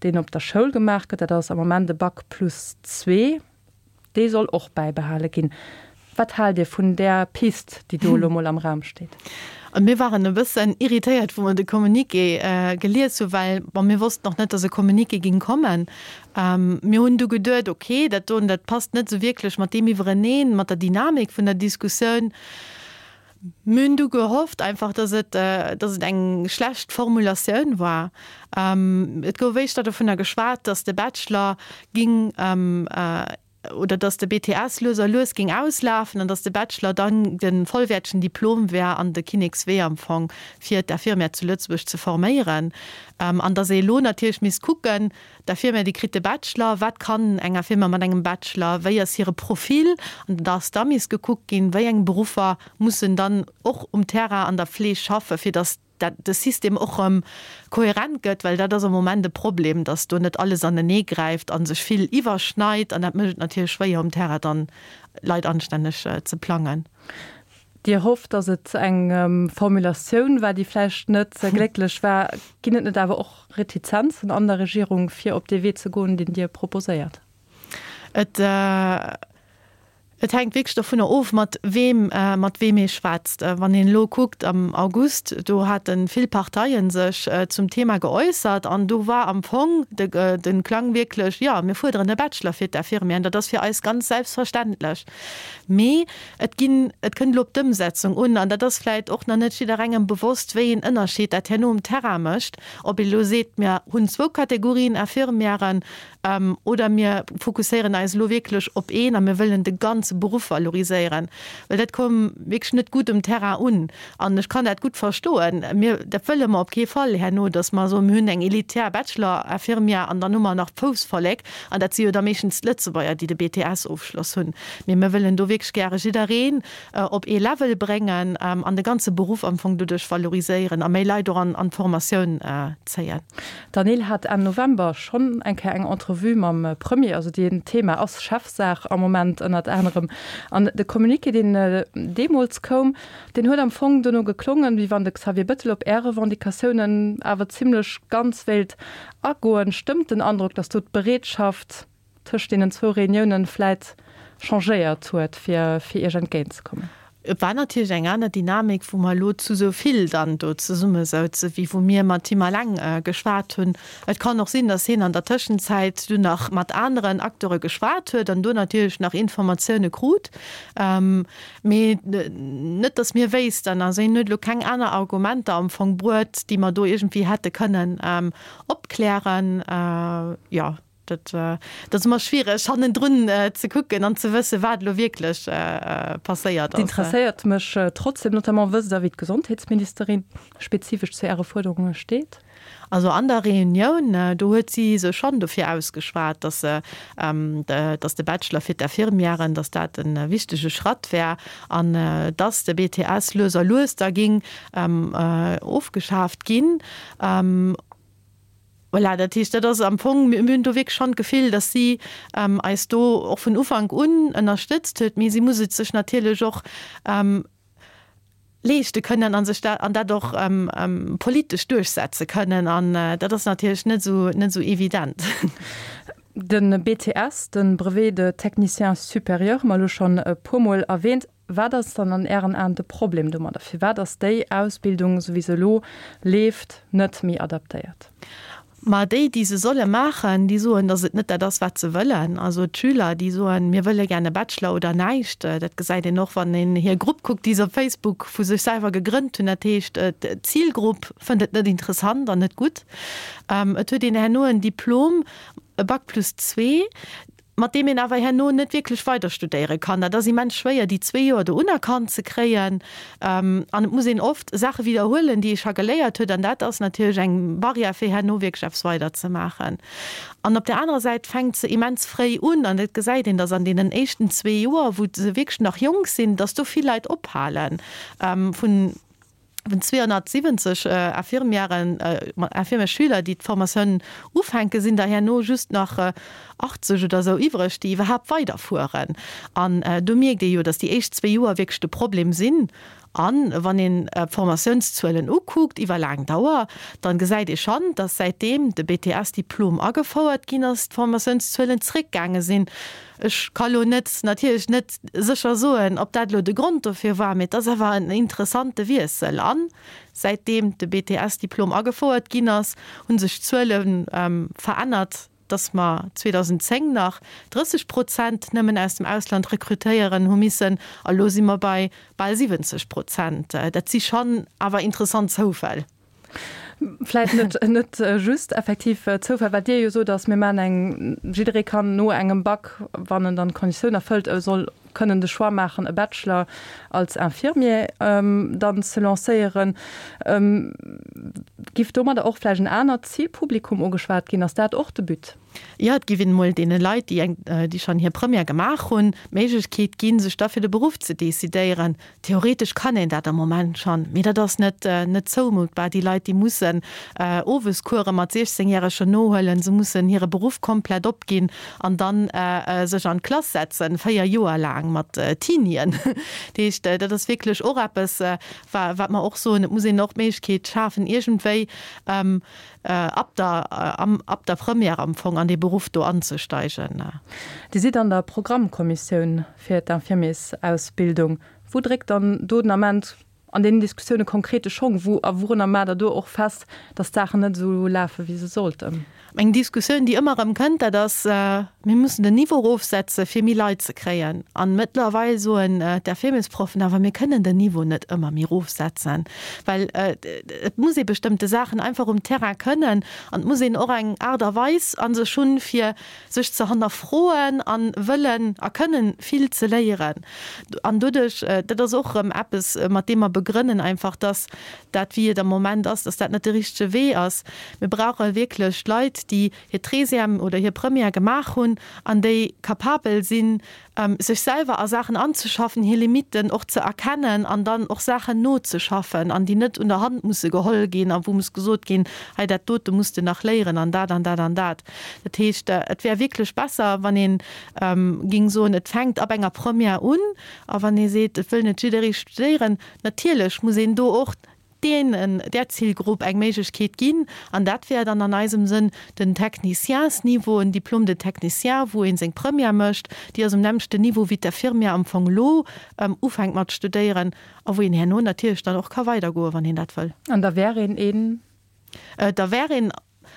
deen op der Schoul gemaach gëtt, dat ass am Moment e Bac plus zwee, dee soll och bäibehale ginn. Wat haalt Dir vun där Pist, déi do elo mol am Raum steet? Mir waren e bëssen irritéiert, wou mer de Communiqué gelies hu well, bon, mir wossten och net, datt e Communiqué ging kommen. Mir hunn du geduet, okay, dat doen, dat passt net esou wierklech mat deem iwwereneen, mat der Dynamik vun der Diskussioun. Mir hunn du gehofft einfach, dass et, dass et eng schlecht Formulatioun war. Et gouf éischter dovunner geschwat, dass de Bachelor ging, oder dass de BTS lues a lues ging auslafen an dass de Bachelor dann de vollwäertegen Diplom wär an de Kinnekswee am Fong, fir d'Infirmière zu Lëtzebuerg ze forméieren. An dass ee elo natierlech misst kucken, D'Infirmière, déi kritt de Bachelor. Wat kann eng Infirmière mat engem Bachelor? Wéi ass hire Profil? An da ass da misst gekuckt ginn, wéi eng Beruffer mussen dann och um Terrain an der Fleeg schaffen, fir datt dat de System och erëm kohärent gëtt, well dat ass am Moment e Problem, datt do net alles anenee gräift a sech vill iwwerschneit. An dat mécht et natierlech schwéier, um Terrain dann Leit anstänneg ze plangen. Dir hofft, datt et eng Formulatioun war, déi vläicht net glécklech war. Ginn et net awer och Retizenzen an der Regierung, fir op dee Wee ze goen, deen Dir proposéiert? Et, et hänkt wierklech dovunner of, mat weem, mat weem ee schwätzt. Wann een elo kuckt, am August, do hate vill Parteie sech zum Thema geäussert an do war am Fong de, de Klang wierklech, Jo, mir fuerderen e Bachelor fir d'Infirmieren, dat ass fir eis ganz selbstverständlech. Mee Et ginn, et kënnt elo op d'Ëmsetzung un, an dat ass vläicht och nach net jidderengem bewosst, wéi een Ënnerscheed dat herno um Terrain mécht, ob ee elo seet, mir hunn zwou Kategorien Infirmièren oder mir fokusséieren eis elo wierklech op een a mir wëllen de ganze Beruff valoriséieren. Well dat koum wierklech net gutt um Terrain un. An ech kann dat gutt verstoen. Mir, dat wëlle mer op kee Fall herno, datt mer soen, mir hunn eng elitär Bachelor-Infirmière an dann hu mer nach d'Foussvollek, an dat si jo da meeschtens d'Lëtzebuerger, déi de BTS-Ofschloss hunn. Mee mir wëllen do wierklech gäre jiddereen op ee Level bréngen an de ganze Beruff am Fong doduerch valoriséieren a méi Leit och an d'Formatioun zéien. D'Anil hat Enn November schonn eng Kéier eng Entrevue mam Premier. Also deen Thema ass Chefsaach am Moment ënnert anerem. An de Communiqué, deen deemools koum, Deen huet am Fong dono geklongen, wéi wann de Xavier Bettel op Är Revendicatiounen awer zimlech ganz wéilt agoen. Stëmmt den Androck, datt do d'Bereetschaft tëscht deenen zwou Reuniounen vläit changéiert huet, fir fir Iech entgéintzekommen? Et war natierlech eng aner Dynamik, wou mer elo zu esou vill dann do zesummesouzen, wéi wou mir mat him eleng geschwat hunn. Et kann och sinn, datt hien an der Tëschenzäit dunn nach mat aneren Acteure geschwat huet an do natierlech nach Informatioune krut. Mee net, datt mir wéissten. Also hien huet elo keng aner Argumenter am Fong bruet, déi mer do iergendwéi hätte kënnen opklären. Jo, dat ass ëmmer schwiereg hannendrun ze kucken an ze wëssen, wat elo wierklech passéiert ass. Interesséiert mech trotzdem, notamment wësst Der, wéi d'Gesondheetsministerin spezifesch zu Äre Fuerderunge steet? Also an der Reunioun, do huet si sech schonn dofir ausgeschwat, dass dass de Bachelor fir d'Infirmièren, dass dat e wichtege Schratt wär an dass de BTS lues a lues da géing ofgeschaaft ginn. Voilà, dat heescht, dat ass am Fong, mir hunn do wierklech schonn d'Gefill, dass si eis do och vun Ufank un ënnerstëtzt huet, mee si muss et sech natierlech och leeschte kënnen a sech dat, an dat och politesch duerchsetze kënnen. An dat ass natierlech net esou, net esou evident. De BTS, de Brevet de technicien supérieur, hu mer elo schonn e puermol erwähnt. Wat ass dann an Ären Aen de Problem domadder? Firwat ass déi Ausbildung, esou wéi se elo leeft, net méi adaptéiert? Ma déi, déi se solle maachen, déi soen, datt et net dat ass, wat se wëllen. Also d'Schüler, déi soen, mir wëlle gär e Bachelor oder näischt. Dat gesäit een och, wann een hir Grupp kuckt, déi se op Facebook vu sech selwer gegrënnt hunn. Dat heescht, d'Zilgrupp fënnt et net interessant an net gutt. Et huet een herno en Diplom, e Bac plus zwee, mat deem een awer herno net wierklech weider studéiere kann. Dat ass immens schwéier, déi zwee Joer do unerkannt ze kréien. An et muss een oft Saache widderhuelen, déi ee scho geléiert huet. An dat ass natierlech eng Barrière, fir herno wierklech eppes weider ze maachen. An op där anerer Säit fänkt se immens fréi un. An et gesäit een, datt an deenen éischten zwee Joer, wou se wierklech nach jonk sinn, datt do vill Leit ophalen vun Vun 270 Infirmièren, Infirmièresschüler, déi d'Formatioun ufänken, sinn der herno just nach 80 oder esou iwwreg, déi iwwerhaapt weiderfueren. An do mierkt ee jo, datt déi éischt zwee Joer wierklech de Problem sinn. A wann een d'Formatiounszuelen ukuckt iwwer laang Dauer, da gesäit ee schonn, datt säitdeem de BTS-Diplom agefouert ginn ass, d'Formatiounszuelen zréckgaange sinn. Ech ka lo net, natierlech net sécher soen, ob dat elo de Grond dofir war, mee et ass awer en interessante Wiessel. An säitdeem de BTS-Diplom agefouert ginn ass, hu sech d'Zuele verännert, dass mer 2010 nach 30 Prozent nëmmen aus dem Ausland rekrutéieren hu missen, a lo si mer bei bal 70 Prozent. Dat si schonn awer interessant Zoufäll. Vläit net, net just effektiv Zoufall. Wat Dir jo sot, ass, mir maachen eng, jidderee kann no engem Bac, wann en dann d'Konditioun erfëllt, e soll kënnen de Choix maachen, e Bachelor als Infirmier dann ze lancéieren. Giff domadder och vläicht en anert Zilpublikum ugeschwat ginn? Ass dat och de But? Jo, et giff een emol deene Leit, déi eng, déi schonn hir Première gemaach hunn, d'Méiglechkeet ginn, sech da fir de Beruff ze decidéieren. Theoretesch kann een dat am Moment schonn, mee dat ass net, net zoumutbar. Déi Leit, déi mussen Owescourse mat 16 Järegen nohuelen, se mussen hire Beruff komplett opginn an dann sech an d'Klass setzen, 4 Joer laang mat Teenien. Dat heescht, dat ass wierklech och eppes, wat mer och soen, et muss een och d'Méiglechkeet schafen, iergendwéi ab der, ab der Première am Fong an dee Beruff do anzesteigen. Dir sidd an der Programmkommissioun fir d'Infirmiersausbildung. Wou dréckt dann do den Ament an deenen Diskussioune konkret de Schong? Wou a wourunner maacht Der do och fest, datt d'Saachen net esou lafe wéi se sollten? Eng Diskussioun, déi ëmmer erëm kënnt, dat ass, Mir mussen den Niveau erofsetze fir méi Leit ze kréien. An mëttlerweil soen d'Infirmiersproffen awer, mir kënnen den Niveau net ëmmer méi erofsetzen, well et muss ee bestëmmte Saachen einfach um Terrain kënnen an et muss een och eng Aart a Weis a sech hunn, fir sech ze hannerfroen a wëllen a kënnen vill ze léieren. An doduerch, dat ass och erëm eppes, mat deem mer begrënnen einfach, dass dat, wéi et am Moment ass, dass dat net de richtege Wee ass. Mir brauche wierklech Leit, déi hir Treizième oder hir Première gemaach hunn an déi capabel sinn, sech selwer a Saachen anzeschaffen, hir Limitten och ze erkennen an dann och Saachen nozeschaffen an déi net un der Hand musse geholl ginn a wou muss gesot ginn, hei dat dote muss de nach léieren an dat an dat an dat. Dat heescht, et wär wierklech besser, wann ee géing soen, et fänkt ab enger Première un a wann ee seet, et wëll net jidderee studéieren, natierlech muss een do och deenen, där Zilgrupp eng Méiglechkeet ginn, an dat wär dann an eisem Sënn den Techniciensniveau, en Diplôme de technicien, wou ee seng Première mécht, déi ass um nämmlechten Niveau wéi d'Infirmière am Fong elo ufänkt mat studéieren a wou een herno natierlech dann och ka weidergoen, wann een dat wëll. An da wär een een? Da wär een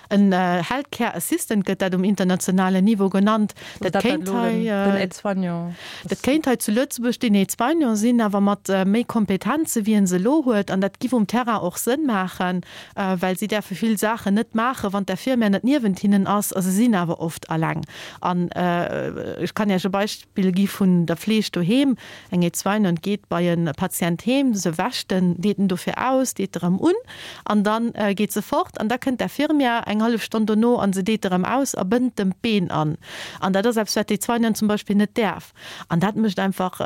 En Health Care Assistant gëtt dat um internationalen Niveau genannt. Dat kéint hei, den Aide-soignant. Dat kéint hei zu Lëtzebuerg den Aide-soignant sinn, awer mat méi Kompetenze wéi en se elo huet. An dat giff um Terrain och Sënn maachen, well si däerfe vill Saachen net maachen, wann d'Infirmière net niewent hinnen ass. A se sinn awer oft alleng. An ech kann Iech e Beispill gi vun der Fleeg doheem. Eng Aide-soignante geet bei e Patient heem, se wäscht en, deet en dofir aus, deet erëm un an da geet se fort an da kënnt d'Infirmière eng hallef Stonn dono an se deet erëm aus a bënnt dem d'Been an. An dat ass eppes, wat d'Aide-soignante zum Beispill net däerf. An dat mécht einfach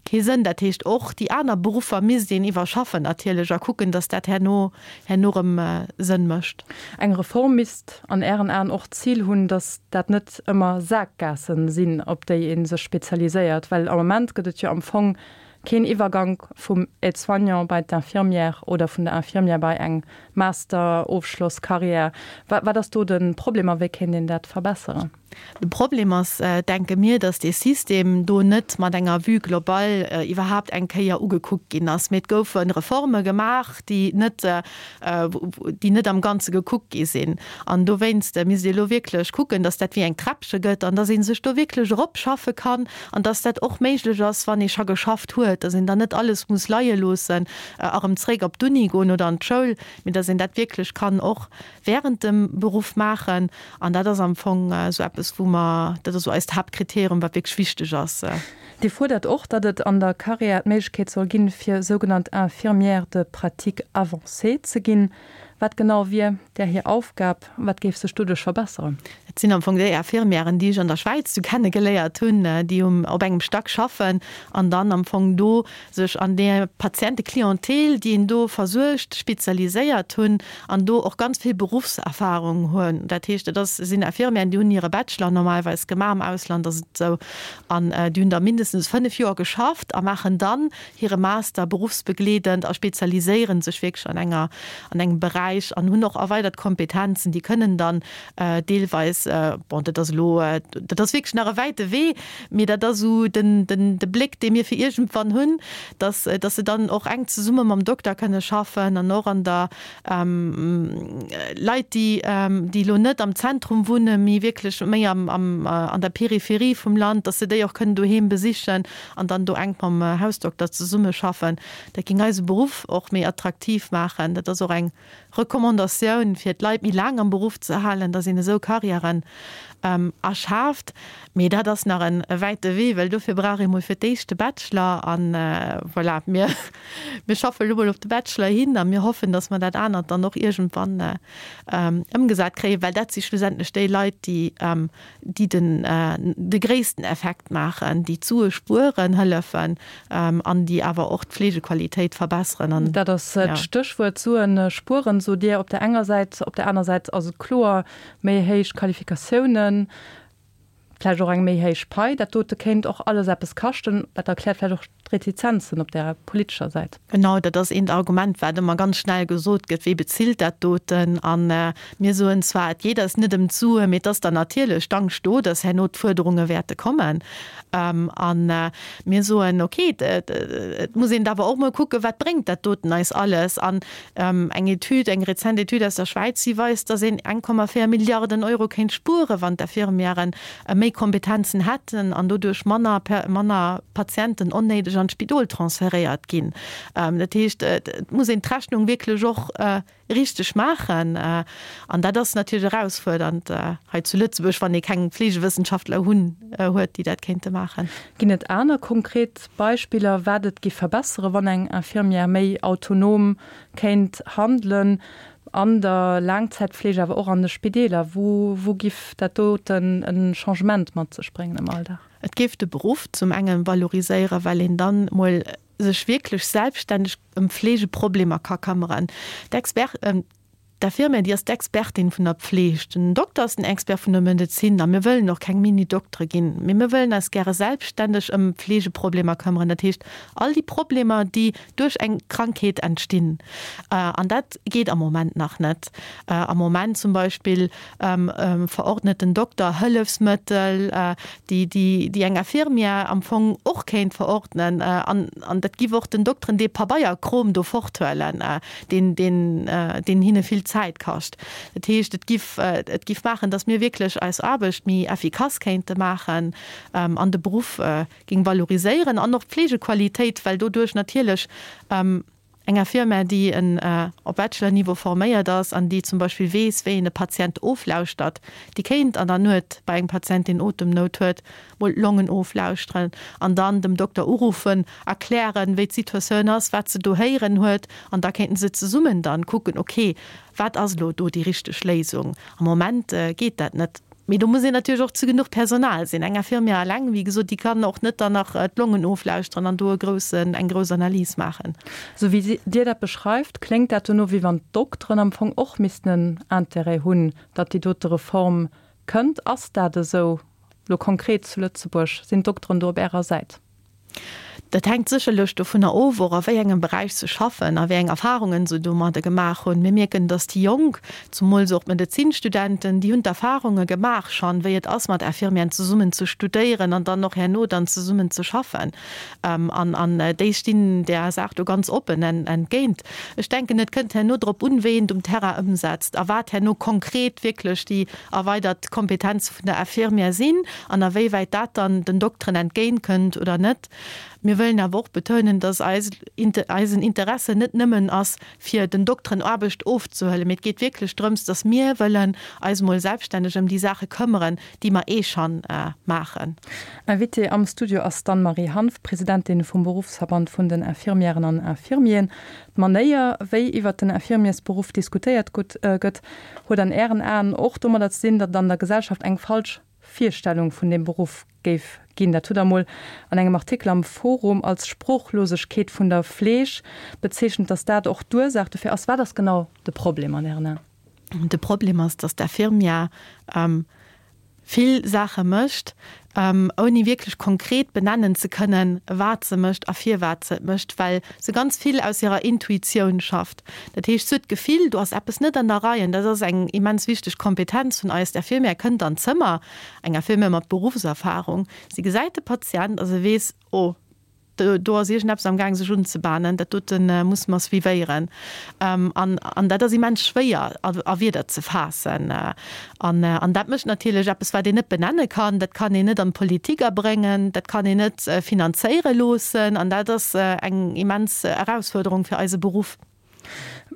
kee Sënn. Dat heescht, och déi aner Beruffer misst een iwwerschaffen natierlech a kucken, datt dat herno herno erëm Sënn mécht. Eng Reform misst an Ären Aen och d'Zil hunn, datt dat net ëmmer Saakgaassen sinn, op déi ee sech spezialiséiert? Well am Moment gëtt et jo am Fong. Keen Iwwergank vum Aide-soignant bei d'Infirmière oder vun der Infirmière bei eng Master-Ofschloss-Carrière. Wat ass do de Problem a wéi kéint een dat verbesseren? De Problem ass, denke mir, datt dee System do net mat enger Vue globale iwwerhaapt eng Kéier ugekuckt ginn ass, mee et goufe Reforme gemaach, déi net, déi net am Ganze gekuckt gi sinn. An dowéinst misst ee elo wierklech kucken, datt dat wéi eng Träppche gëtt an datt ee sech do wierklech eropschaffe kann an datt dat och méiglech ass, wann ee scho geschafft huet, datt een dann net alles muss leie loossen a erëm zréck op d'Uni goen oder an d'Schoul, mee datt een dat wierklech kann och während dem Beruff maachen. An dat ass am Fong esou eppes, wou mer, dat ass esou eist Haaptkriterium, wat wierklech wichteg ass. Dir fuerdert och, datt et an der Carrière d'Méiglechkeet soll ginn, fir sougenannt Infirmière de pratique avancée ze ginn. Wat genau wier där hir Aufgab? Wat géif sech doduerch verbesseren? Dat sinn am Fong déi Infirmièren, déi ech an der Schwäiz du kenne geléiert hunn, déi um op engem Stack schaffen an dann am Fong do sech an där Patienteclientèle, déi een do versuergt, spezialiséiert hunn an do och ganz vill Beruffserfahrung hunn. Dat heescht, et ass, sinn Infirmièren, déi hunn hire Bachelor normalerweis gemaach, am Ausland ass et esou, an déi hunn da mindestens 5 Joer geschafft a maachen dann hire Master beruffsbegleedend a spezialiséiere sech wierklech an enger, an engem Beräich an hunn och erweidert Kompetenzen. Déi kënnen dann deelweis, bon, dat ass elo, dat ass wierklech nach e wäite Wee, mee dat ass esou den, den, de Bléck, dee mir fir iergendwann hunn, dass, dass se dann och enk zesumme mam Dokter kënne schaffen an och an der, Leit, déi, déi elo net am Zentrum wunnen, mee wierklech méi am, am, an der Peripherie vum Land, dass se déi och kënnen doheem besichen an dann do enk mam Hausdokter zesummeschaffen. Dat géing eise Beruff och méi attraktiv maachen. Dat ass och eng Recommandatioun, fir d'Leit méi laang am Beruff ze halen, dass een esou Karriären erschaaft. Mee dat ass nach e wäite Wee, well dofir brauch ee mol fir d'éischt de Bachelor. An voilà, mir, mir schaffe elo mol op de Bachelor hin a mir hoffen, dass mer dat anert dann och iergendwann ëmgesat kréien, well dat si schlussendlech déi Leit, déi, déi den, de gréissten Effekt maachen, déi d'Sue spueren hëllefen an déi awer och d'Fleegequalitéit verbesseren. An Dat ass d'Stéchwuert, Suen spueren, sot Dir op der enger Säit. Op der aner Säit ass et kloer, méi héich Qualifikatiounen, vläicht och eng méi héich Pai, dat dote kéint och alles eppes kaschten. Dat erkläert vläicht och d'Retizenzen op der politescher Säit. Genau, dat ass eent Argument, wat ëmmer ganz schnell gesot gëtt, Wee bezilt dat doten? A mir soen zwar, et geet eis net ëm d'Suen, mee et ass dann natierlech d'Angscht do, dass herno d'Fuerderunge wäerte kommen. A mir soen, okay, et muss een awer och mol kucken, wat bréngt dat doten eis alles? An eng Etüd, eng rezent Etüd aus der Schwäiz, déi weist, dass een 1,4 Milliarden Euro kéint spueren, wann d'Infirmièren méi Kompetenzen hätten an doduerch manner, manner Patienten onnéideg an d'Spidol transferéiert ginn. Dat heescht, et muss een d'Rechnung wierklech och richteg maachen. An dat ass natierlech erausfuerdernd hei zu Lëtzebuerg, wann ee keng Fleegewëssenschaftler hunn, huet, déi dat kéinte maachen. Ginn et aner konkret Beispiller, wat et giff verbesseren, wann eng Infirmière méi autonom kéint handelen an der Laangzäitfleeg, awer och an de Spideeler? Wou, wou giff dat doten e Changement mat sech bréngen am Alldag? Et géif de Beruff zum engen valoriséieren, well een dann mol sech wierklech selbststänneg ëm Fleegeproblemer ka këmmeren. D'Expert, d'Infirmière, déi ass d'Expertin vun der Pfleg, den Dokter ass den Expert vun der Medezin a mir wëllen och keng Mini-Doktere ginn, mee mir wëllen eis gäre selbststänneg ëm Fleegeproblemer këmmeren, dat heescht all déi Problemer, déi duerch eng Krankheet entstinn. An dat geet am Moment nach net. Am Moment zum Beispill verordnet den Dokter Hëllefsmëttel, déi, déi eng Infirmière am Fong och kéint verordnen. An, an dat giff och den Dokteren dee Pabeierkrom do forthuelen, deen, deen, deen hinne vill Zäit kascht. Dat heescht, et giff, et giff maachen, datt mir wierklech eis Aarbecht méi effikass kéinte maachen an de Beruff géing valoriséieren an och d'Pflegequalitéit, well doduerch natierlech eng Infirmière, déi en op Bachelor-Niveau forméiert ass an déi zum Beispill weess, wéi een e Patient oflauschtert, déi kéint an der Nuet bei engem Patient, deen Otemnout huet, mol d'Longen oflauschteren an dann dem Dokter uruffen, erklären, wéi d'Situatioun ass, wat se do héieren huet an da kéinten se zesummen dann kucken, okay, wat ass elo do déi richteg Léisung? Am Moment geet dat net. Mee do muss een natierlech och zu genuch Personal sinn. Eng Infirmière eleng, wéi gesot, déi kann och net dann nach d'Longen oflauschteren an do e groussen, eng grouss Analys maachen. Esou wéi Dir dat beschreift, kléngt dat dono, wéi wann d'Dokteren am Fong och missten en Intérêt hunn, datt déi dote Reform kënnt. Ass dat esou, elo konkret zu Lëtzebuerg? Sinn d'Dokteren do op Ärer Säit? Dat hänkt sécherlech dovunner of, och a wéi engem Beräich se schaffen a wéi eng Erfarungen se domadde gemaach hunn. Mir mierken, datt déi Jonk, zumools och d'Medezinstudenten, déi hunn d'Erfarunge gemaach schonn, wéi et ass, mat Infirmieren zesummen ze studéieren an dann och herno dann zesummen ze schaffen. An an déi stinn där Saach do ganz oppen entgéint. Ech denken, et kënnt herno drop un, wéi een et um Terrain ëmsetzt a wat herno konkret wierklech déi erweidert Kompetenze vun der Infirmière sinn an a wéi wäit dat dann den Dokteren entgéint kënnt oder net. Mir wëllen awer och betounen, dass eis eisen Interesse net nëmmen ass, fir den Dokteren Aarbecht ofzehuelen, mee et geet wierklech drëms, dass mir wëllen eis emol selbststänneg ëm déi Saache këmmeren, déi mer eh schonn maachen. Invitée am Studio ass d'Anne-Marie Hanff, Presidentin vum Beruffsverband vun den Infirmièren an Infirmieren. D'Manéier, wéi iwwert den Infirmiersberuff diskutéiert gëtt, huet an Ären Aen och domadder ze dinn, datt et an der Gesellschaft eng falsch Virstellung vun deem Beruff géif ginn. Dat hutt Der emol an engem Artikel am Forum als Sproochlosegkeet vun der Fleeg bezeechent, datt dat och d'Ursaach dofir ass. Wat ass genau de Problem an Ären Aen? De Problem ass, datt d'Infirmière vill Saache mécht, ouni wierklech konkret benennen ze kënnen, wat se mécht a firwat se et mécht, well se ganz vill aus hirer Intuitioun schafft. Dat heescht, se huet d'Gefill, do ass eppes net an der Rei. An dat ass eng immens wichteg Kompetenz vun eis. D'Infirmière kënnt an d'Zëmmer, eng Infirmière mat Beruffserfahrung, si gesäit de Patient a se weess, Oh, Do ass iergendeppes am Gaang sech unzebahnen, dat dote musse mer suivéieren. An, an dat ass immens schwéier a Wierder ze faassen. An, an dat mécht natierlech eppes, wat een net benenne kann, dat kann een net an d'Politik abréngen, dat kann een net finanzéiere loossen. An dat ass eng immens Erausfuerderung fir eise Beruff.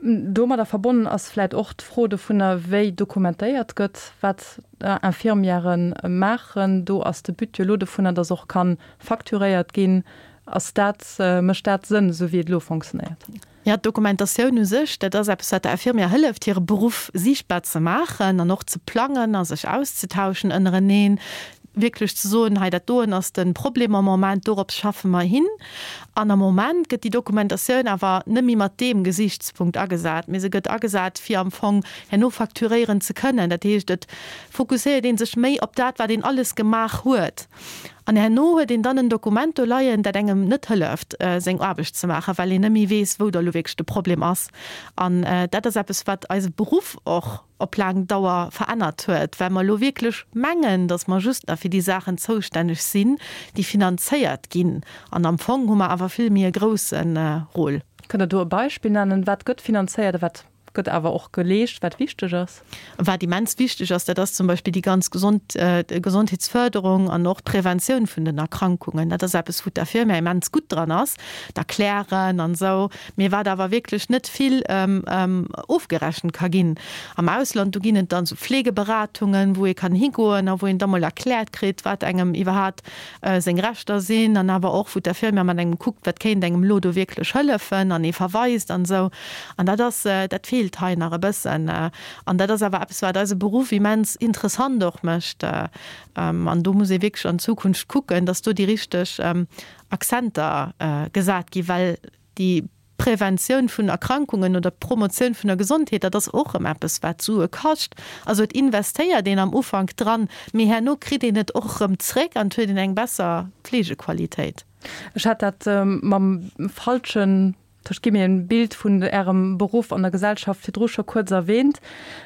Domadder verbonnen ass vläit och d'Fro dovunner, wéi dokumentéiert gëtt, wat Infirmièrë maachen. Do ass de But jo elo dovunner, datt och ka facturéiert ginn. Ass dat, mécht dat Sënn, esou wéi et elo fonctionnéiert? Jo, d'Dokumentatioun u sech, dat ass eppes, wat der Infirmière hëlleft, hire Beruff siichtbar ze maachen an och ze plangen a sech auszetauschen ënnereneen. wierklech ze soen, hei dat doen ass de Problem am Moment, dorops schaffe mer hin. An am Moment gëtt déi Dokumentatioun awer net méi mat deem Gesichtspunkt agesat, mee se gëtt agesat, fir am Fong herno facturéieren ze kënnen. Dat heescht, et fokusséiert ee sech méi op dat, wat een alles gemaach huet. An herno huet een dann en Dokument do leien, dat engem net hëlleft, seng Aarbecht ze maachen, well een net méi weess, wou da lo wierklech de Problem ass. An dat ass eppes, wat eise Beruff och op laang Dauer verännert huet, well mer elo wierklech mengen, datt mer just nach fir déi Saachen zoustänneg sinn, déi finanzéiert ginn. An am Fong hu mer awer vill méi e grousse Rôle. Kënnt Der do e Beispill nennen? Wat gëtt finanzéiert a wat gëtt awer och geleescht, wat wichteg ass? Wat immens wichteg ass, dat ass zum Beispill déi ganz gesond Gesondheetsförderung an och d'Preventioun vun den Erkrankungen. Dat ass eppes, wou d'Infirmière immens gutt dran ass, d'Erklären an esou. Mee wat awer wierklech net vill ofgerechent ka ginn. Am Ausland, do ginn et dann esou Fleegeberatungen, wou ee kann higoen a wou een da mol erkläert kritt, wat engem iwwerhaapt seng Rechter sinn an awer och, wou d'Infirmière mat engem kuckt, wat kéint engem elo do wierklech hëllefen an ee verweist an esou. An dat ass, dat feelt hei nach e bëssen. An dat ass awer eppes, wat eise Beruff immens interessant och mécht. An do muss ee wierklech an Zukunft kucken, dass do déi richteg Accenter gesat ginn, well déi Preventioun vun Erkrankungen oder d'Promotioun vun der Gesondheet, dat ass och erëm eppes, wat Sue kascht. Also et investéiert een am Ufank dran, mee herno kritt een et och erëm zréck an et huet een eng besser Fleegequalitéit. Ech hat dat mam falschen Ech gi mir en Bild vun Ärem Beruff an der Gesellschaft virdru scho kuerz erwähnt.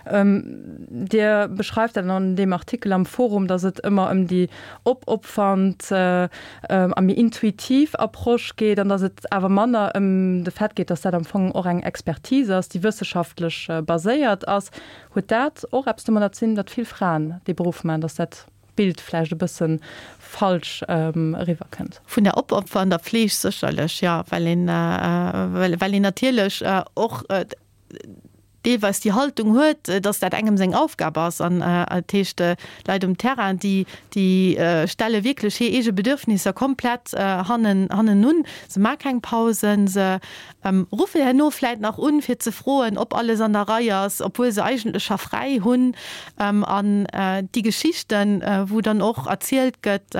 Dir beschreift dat an deem Artikel am Forum, datt et ëmmer ëm déi opopfernd a méi intuitiv Approche geet an datt et awer manner ëm de Fait geet, datt dat am Fong och eng Expertise ass, déi wësseschaftlech baséiert ass. Huet dat och eppes domadder ze dinn, datt vill Fraen dee Beruff maachen, datt dat Bild vläicht e bësse falsch eriwwer kënnt. Vun der opopfernder Fleeg sécherlech, jo, well een, well een natierlech och deelweis déi Haltung huet, datt dat engem seng Aufgab ass. An dat heescht, d'Leit um Terrain, déi, déi stelle wierklech hir eege Bedürfnisser komplett hannen, hannenun. Se maache keng Pausen, se Ruffe herno vläit nach un, fir ze froen, ob alles an der Rei ass, obwuel se eigentlech scho fräi hunn. An déi Geschichten, wou dann och erzielt gëtt,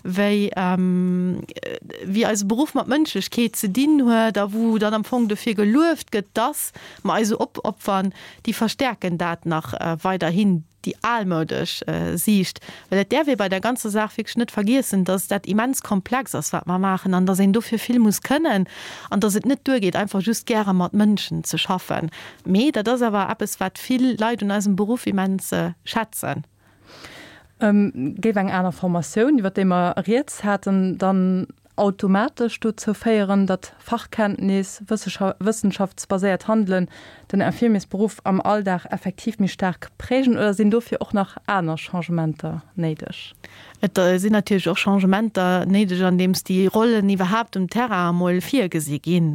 wéi, wéi eise Beruff mat Mënschlechkeet ze dinn huet a wou dann am Fong dofir gelueft gëtt, dass mer eis esou op. opfern, déi verstärken dat nach weiderhin, déi almoudesch Siicht. Well et däerf ee bei der ganzer Saach wierklech net vergiessen, dass dat immens komplex ass, wat mer maachen, an dass een dofir vill muss kënnen an dass et net duergeet, einfach just gäre mat Mënschen ze schaffen. Mee dat ass awer eppes, wat vill Leit un eisem Beruff immens schätzen. Géif eng aner Formatioun, iwwer déi mer rieds haten, dann automatesch dozou féieren, datt Fachkenntnis, wëssenschaftsbaséiert Handelen den Infirmiersberuff am Alldag effektiv méi staark prägen oder sinn dofir och nach aner Changementer néideg? Et sinn natierlech och Changementer néideg, andeems déi Rollen iwwerhaapt um Terrain emol virgesi ginn.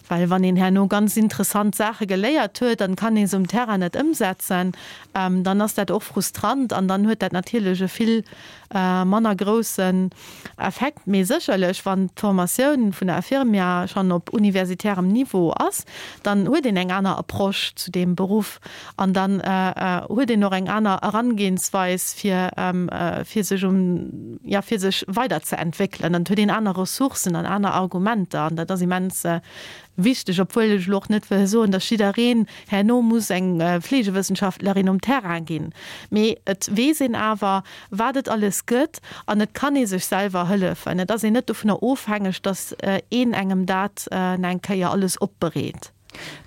Well wann een herno ganz interessant Saache geléiert huet an kann ee se um Terrain net ëmsetzen, dann ass dat och frustrant an dann huet dat natierlech e vill manner groussen Effekt. Mee sécherlech, wann d'Formatioun vun der Infirmière schonn op universitärem Niveau ass, dann huet een eng aner Approche zu deem Beruff an dann huet een och eng aner Erangehensweis, fir fir sech um, jo, fir sech weiderzeentwéckelen. An et huet een aner Ressourcen an aner Argumenter an dat ass immens Wichteg, obwuel ech elo och net wëll soen, datt jiddereen herno muss eng Fleegewëssenschaftlerin um Terrain ginn, mee et weess een awer, wat et alles gëtt an et kann ee sech selwer hëllefen. Et ass een net dovunner ofhängeg, datt een engem dat eng Kéier alles opbereet.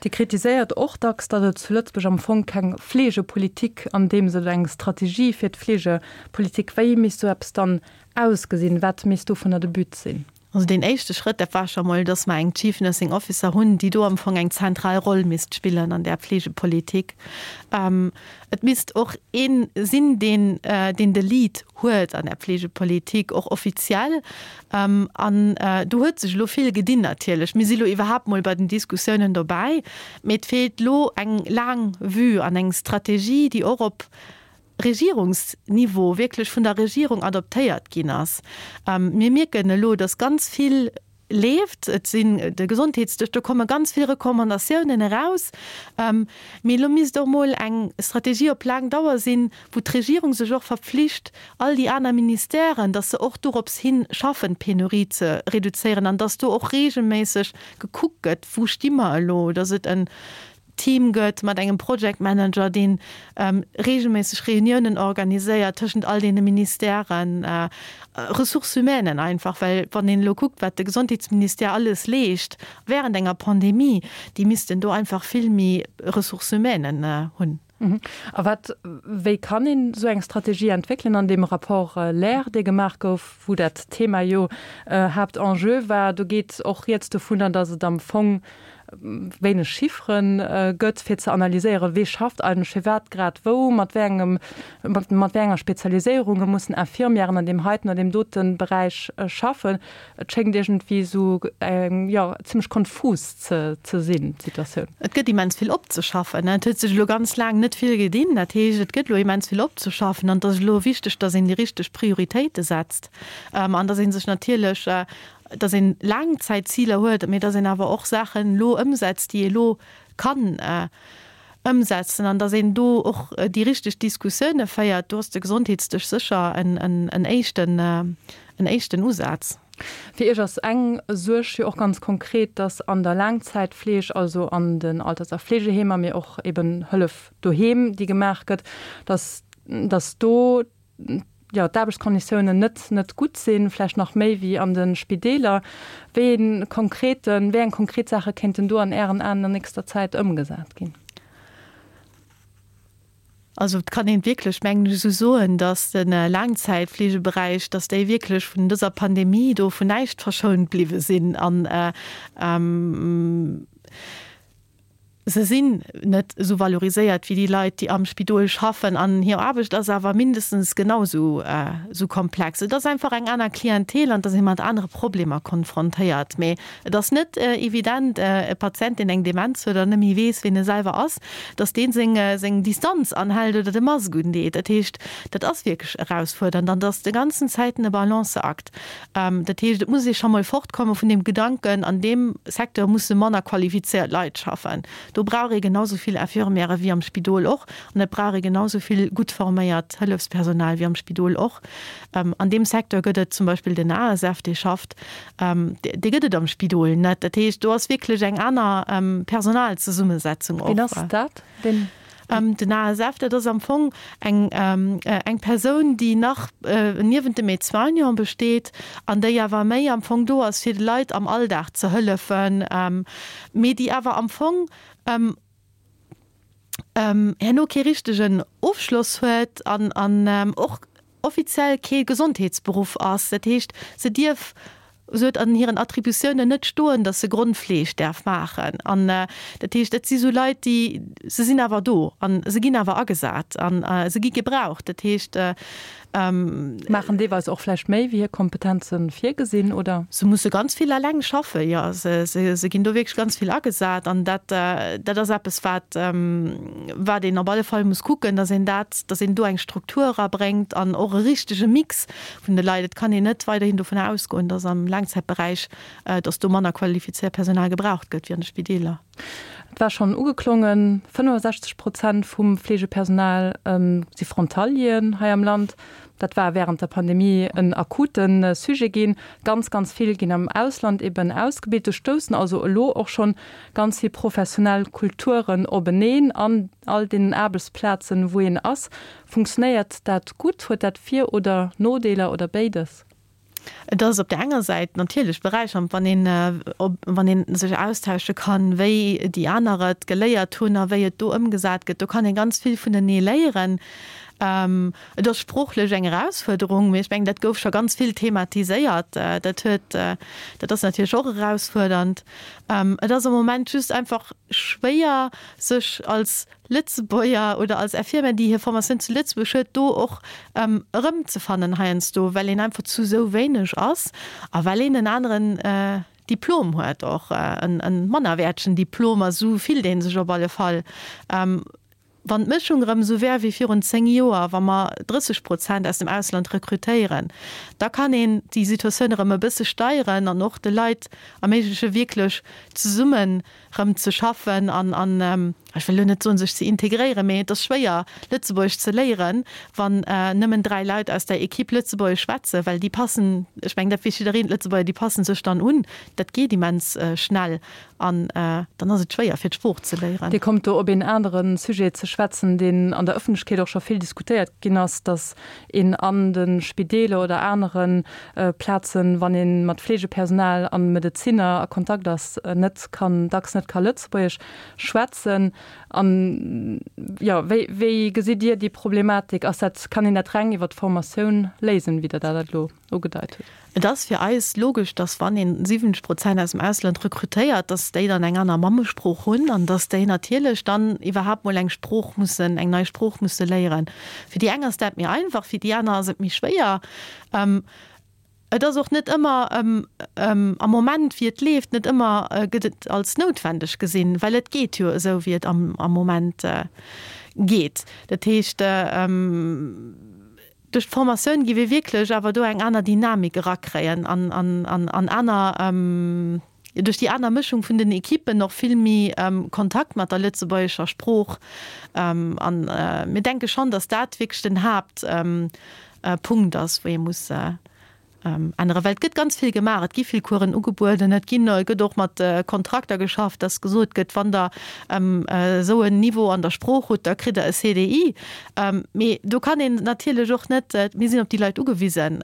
Dir kritiséiert och dacks, datt et zu Lëtzebuerg am Fong keng Fleegepolitik an deem Sënn, eng Strategie fir d'Fleegepolitik. Wéi misst sou eppes dann ausgesinn? Wat misst dovunner de But sinn? Also deen éischte Schrëtt, dat war scho mol, dass mer eng Chief Nursing Officer hunn, déi do am Fong eng zentral Roll misst spillen an där Pflegepolitik. Et misst och ee sinn, deen, deen de Lead huet an där Pflegepolitik, och offiziell. An do huet sech elo vill gedinn natierlech. Mir si lo iwwerhaapt mol bei den Diskussiounen dobäi, mee et feelt elo eng laang Vue an eng Strategie, déi och op Regierungsniveau wierklech vun der Regierung adoptéiert ginn ass. Mir mierken elo, dass ganz vill leeft. Et sinn de Gesondheetsdësch, do komme ganz vill Recommandatiounen eraus. Mee elo misst och mol eng Strategie op laang Dauer sinn, wou d'Regierung sech och verpflicht, all déi aner Ministèren, dass se och dorops hi schaffen, d'Penurie ze reduzéieren an dass do och regelméisseg gekuckt gëtt, wou sti mer elo, dass et en Team gëtt mat engem Project Manager, dee reegelméisseg Reuniounen organiséiert tëschent all deene Ministèren, Ressources humaines einfach, well wann een elo kuckt, wat de Gesondheetsministère alles leescht während enger Pandemie, déi missten do einfach vill méi Ressources humaines hunn. A wat, wéi kann een esou eng Strategie entwéckelen? An deem Rapport LAIR, dee gemaach gouf, wou dat Thema jo Haaptenjeu war, do geet och rieds dovunner, datt et am Fong wéineg Chiffere gëtt, fir ze analyséieren, wee schafft eigentlech firwat grad wou, mat wéi engem, mat wéi enger Spezialiséierung mussen Infirmièren an deem heiten oder deem dote Beräich schaffen. Et schéngt iergendwéi esou eng, jo, zimmlech konfus ze ze sinn, d'Situatioun. Et gëtt immens vill opzeschaffen. Et huet sech elo ganz laang net vill gedinn. Dat heescht, et gëtt elo immens vill opzeschaffen an et ass elo wichteg, datt een déi richteg Prioritéite setzt an datt ee sech natierlech dass een Laangzäitziler huet, mee dass een awer och Saachen elo ëmsetzt, déi ee elo kann ëmsetzen an dass een do och déi richteg Diskussioune féiert. Do ass de Gesondheetsdësch sécher en éischten, en éischten Usaz. Fir Iech ass eng Suerg jo och ganz konkret, dass an der Laangzäitfleeg, also an den Alters a Fleegeheemer, mee och eben Hëllef doheem, déi gemaach gëtt, dass, dass do jo, d'Aarbechtskonditiounen net, net gutt sinn, vläicht nach méi wéi an de Spideeler. Wéi ee konkreten, wéi eng konkret Saache kéinten do an Ären Aen an nächster Zäit ëmgesat ginn? Also et kann een wierklech, mengen ech, esou soen, datt de Laangzäitfleegeberäich, datt déi wierklech vun dëser Pandemie do vun näischt verschount bliwwe sinn an Se sinn net esou valoriséiert wéi déi Leit, déi am Spidol schaffen an hir Aarbecht ass awer mindestens genau esou komplex. Et ass einfach eng aner Clientèle an et ass ee mat anere Problemer konfrontéiert. Mee et ass net evident, e Patient, deen eng Demenz huet an net méi weess, ween e selwer ass, datt dee seng Distanz anhält oder de Mask undeet. Dat heescht, dat ass wierklech erausfuerdernd an et ass de ganzen Zäiten e Balanceakt. Dat heescht, et muss ee scho mol fortkomme vun deem Gedanken, an deem Secteur musse manner qualifizéiert Leit schaffen. Do brauch ee genau sou vill Infirmièrë wéi am Spidol och an et brauch ee genau sou vill gutt forméiert Hëllefspersonal wéi am Spidol och. An deem Secteur gëtt et zum Beispill den ASF, dee schafft, dee gëtt et am Spidol net. Dat heescht, do ass wierklech eng aner Personalzesummesetzung och. Wien ass dat, deen? Den ASF, dat ass am Fong eng eng Persoun, déi nach niewent dem Aide-soignant besteet an déi awer méi am Fong do ass, fir de Leit am Alldag ze hëllefen, mee déi awer am Fong herno kee richtegen Ofschloss huet an an och offiziell kee Gesondheetsberuff ass. Dat heescht, se dierf, se huet an hiren Attributiounen net stoen, datt se Grondfleeg däerf maachen. An dat heescht, dat si sou Leit, déi, se sinn awer do a se ginn awer agesat a se gi gebraucht. Dat heescht. Maachen deelweis och vläicht méi, wéi hir Kompetenze virgesinn, oder? Se musse ganz vill eleng schaffen, jo. Se ginn do wierklech ganz vill agesat. An dat, dat ass eppes, wat, wat een op alle Fall muss kucken, dass een dat, dass een do eng Struktur erabréngt an och e richtege Mix vun de Leit. Et kann een net weiderhin dovun ausgoen, dass am Laangzäitberäich, dass do manner qualifizéiert Personal gebraucht gëtt wéi an de Spideeler. Et war schonn ugeklongen, 65 Prozent vum Fleegepersonal si Frontalieren hei am Land. Dat war wärend der Pandemie en akute Sujet ginn. Ganz, ganz vill ginn am Ausland eben ausgebilt. Do stoussen also elo och schonn ganz vill professionell Kulturen openeen an all deenen Aarbechtsplazen, wou een ass. Funktionéiert dat gutt? Huet dat Vir oder Nodeeler oder béides? Et ass op där enger Säit natierlech beräichernd, wann een, wann ee sech austausche kann, wéi déi aner et geléiert hunn a wéi et do ëmgesat gëtt. Do kann ee ganz vill vunenee léieren. Et ass sproochlech eng Erausfuerderung, mee ech mengen, dat gouf scho ganz vill thematiséiert. Dat huet, dat ass natierlech och erausfuerdernd. Et ass am Moment just einfach schwéier, sech als Lëtzebuerger oder als Infirmière, déi hir Formatioun zu Lëtzebuerg huet, do och erëmzefannen heiansdo, well een einfach zu esou wéineg ass a well een en aneren Diplom huet, och e mannerwäertegen Diplom, a sou fillt ee sech op alle Fall. Wann d'Mëschung erëm esou wär wéi virun 10 Joer, wa mer 30 Prozent aus dem Ausland rekrutéieren, da kann een déi Situatioun erëm e bësse steieren an och de Leit erméigleche wierklech zesummen rëm ze schaffen an, an ech wëll elo net soen, sech ze integréieren, mee et ass schwéier, Lëtzebuergesch ze léieren, wann nëmmen 3 Leit aus der Equipe Lëtzebuergesch schwätzen, well déi passen, ech mengen, dat weess jiddereen, d'Lëtzebuerger, déi passen sech dann un, dat geet immens schnell an dann ass et schwéier, fir d'Sprooch ze léieren. Dir kommt do op een anere Sujet ze schwätzen, deen an der Ëffentlechkeet och scho vill diskutéiert ginn ass, datt een an de Spideeler oder anere Plazen, wann ee mat Fleegepersonal a Medezinner a Kontakt ass, net kann, dacks net ka Lëtzebuergesch schwätzen. An, jo, wéi, wéi gesitt Dir déi Problematik? Ass dat, kann een dat reng iwwer d'Formatioun léisen, wéi Der dat elo ugedeit hutt? Et ass fir eis logesch, dass wann een 70 Prozent aus dem Ausland rekrutéiert, dass déi dann eng aner Mammesprooch hunn an dass déi natierlech dann iwwerhaapt mol eng Sprooch mussen, eng nei Sprooch musse léieren. Fir déi eng ass dat méi einfach, fir déi aner ass et méi schwéier. Et ass och net ëmmer am Moment, wéi et leeft, net ëmmer gëtt et als noutwendeg gesinn, well et geet jo esou, wéi et am Moment geet. Dat heescht, duerch d'Formatioun gi mir wierklech awer do eng aner Dynamik erakréien an aner, duerch déi aner Mëschung vun den Ekippen och vill méi Kontakt mat der lëtzebuergescher Sprooch. An mir denke schonn, datt dat wierklech den Haaptpunkt ass, wou ee muss änneren. Well et gëtt ganz vill gemaach, et gi vill Coursen ugebueden, et ginn, et gëtt och mat Kontrakter geschafft, datt gesot gëtt, wann Der esou en Niveau an der Sprooch hutt, da kritt Der e CDI. Mee do kann een natierlech och net, mir sinn op déi Leit ugewisen.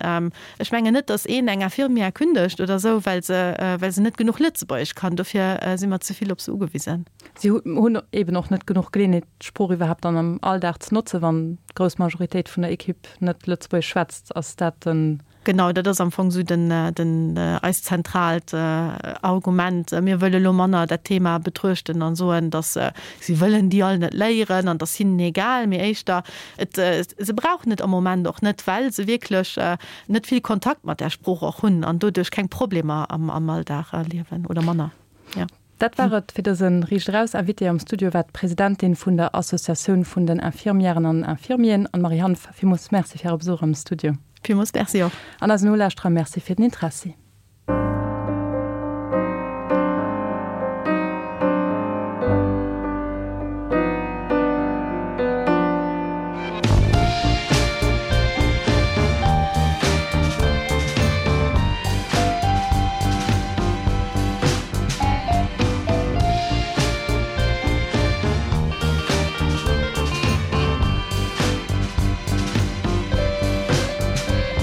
Ech mengen net, datt een eng Infirmière kündegt oder esou, well se, well se net genuch Lëtzebuergesch kann. Dofir si mer ze vill op se ugewisen. Si hunn eben och net genuch Geleeënheet, d'Sprooch iwwerhaapt dann am Alldag ze notzen, wann d'grouss Majoritéit vun der Equipe net Lëtzebuergesch schwätzt. Ass dat den. Genau, dat ass am Fong esou den, den, eist zentraalt Argument. Mir wëlle lo manner dat Thema betruechten an soen, datt si wëllen déi all net léieren an et ass hinnen egal, mee éischter, Et, se brauchen et am Moment och net, well se wierklech net vill Kontakt mat där Sprooch och hunn an doduerch keng Problemer am Alldag erliewen oder manner, jo. Dat war et fir dëse Riicht Eraus. Invitée am Studio war d'Presidentin vun der Associatioun vun den Infirmièren an Infirmieren, Anne-Marie Hanff. Villmools Merci fir Äre Besuch am Studio. Villmools Merci och. An eisen Nolauschterer Merci fir den Interessi.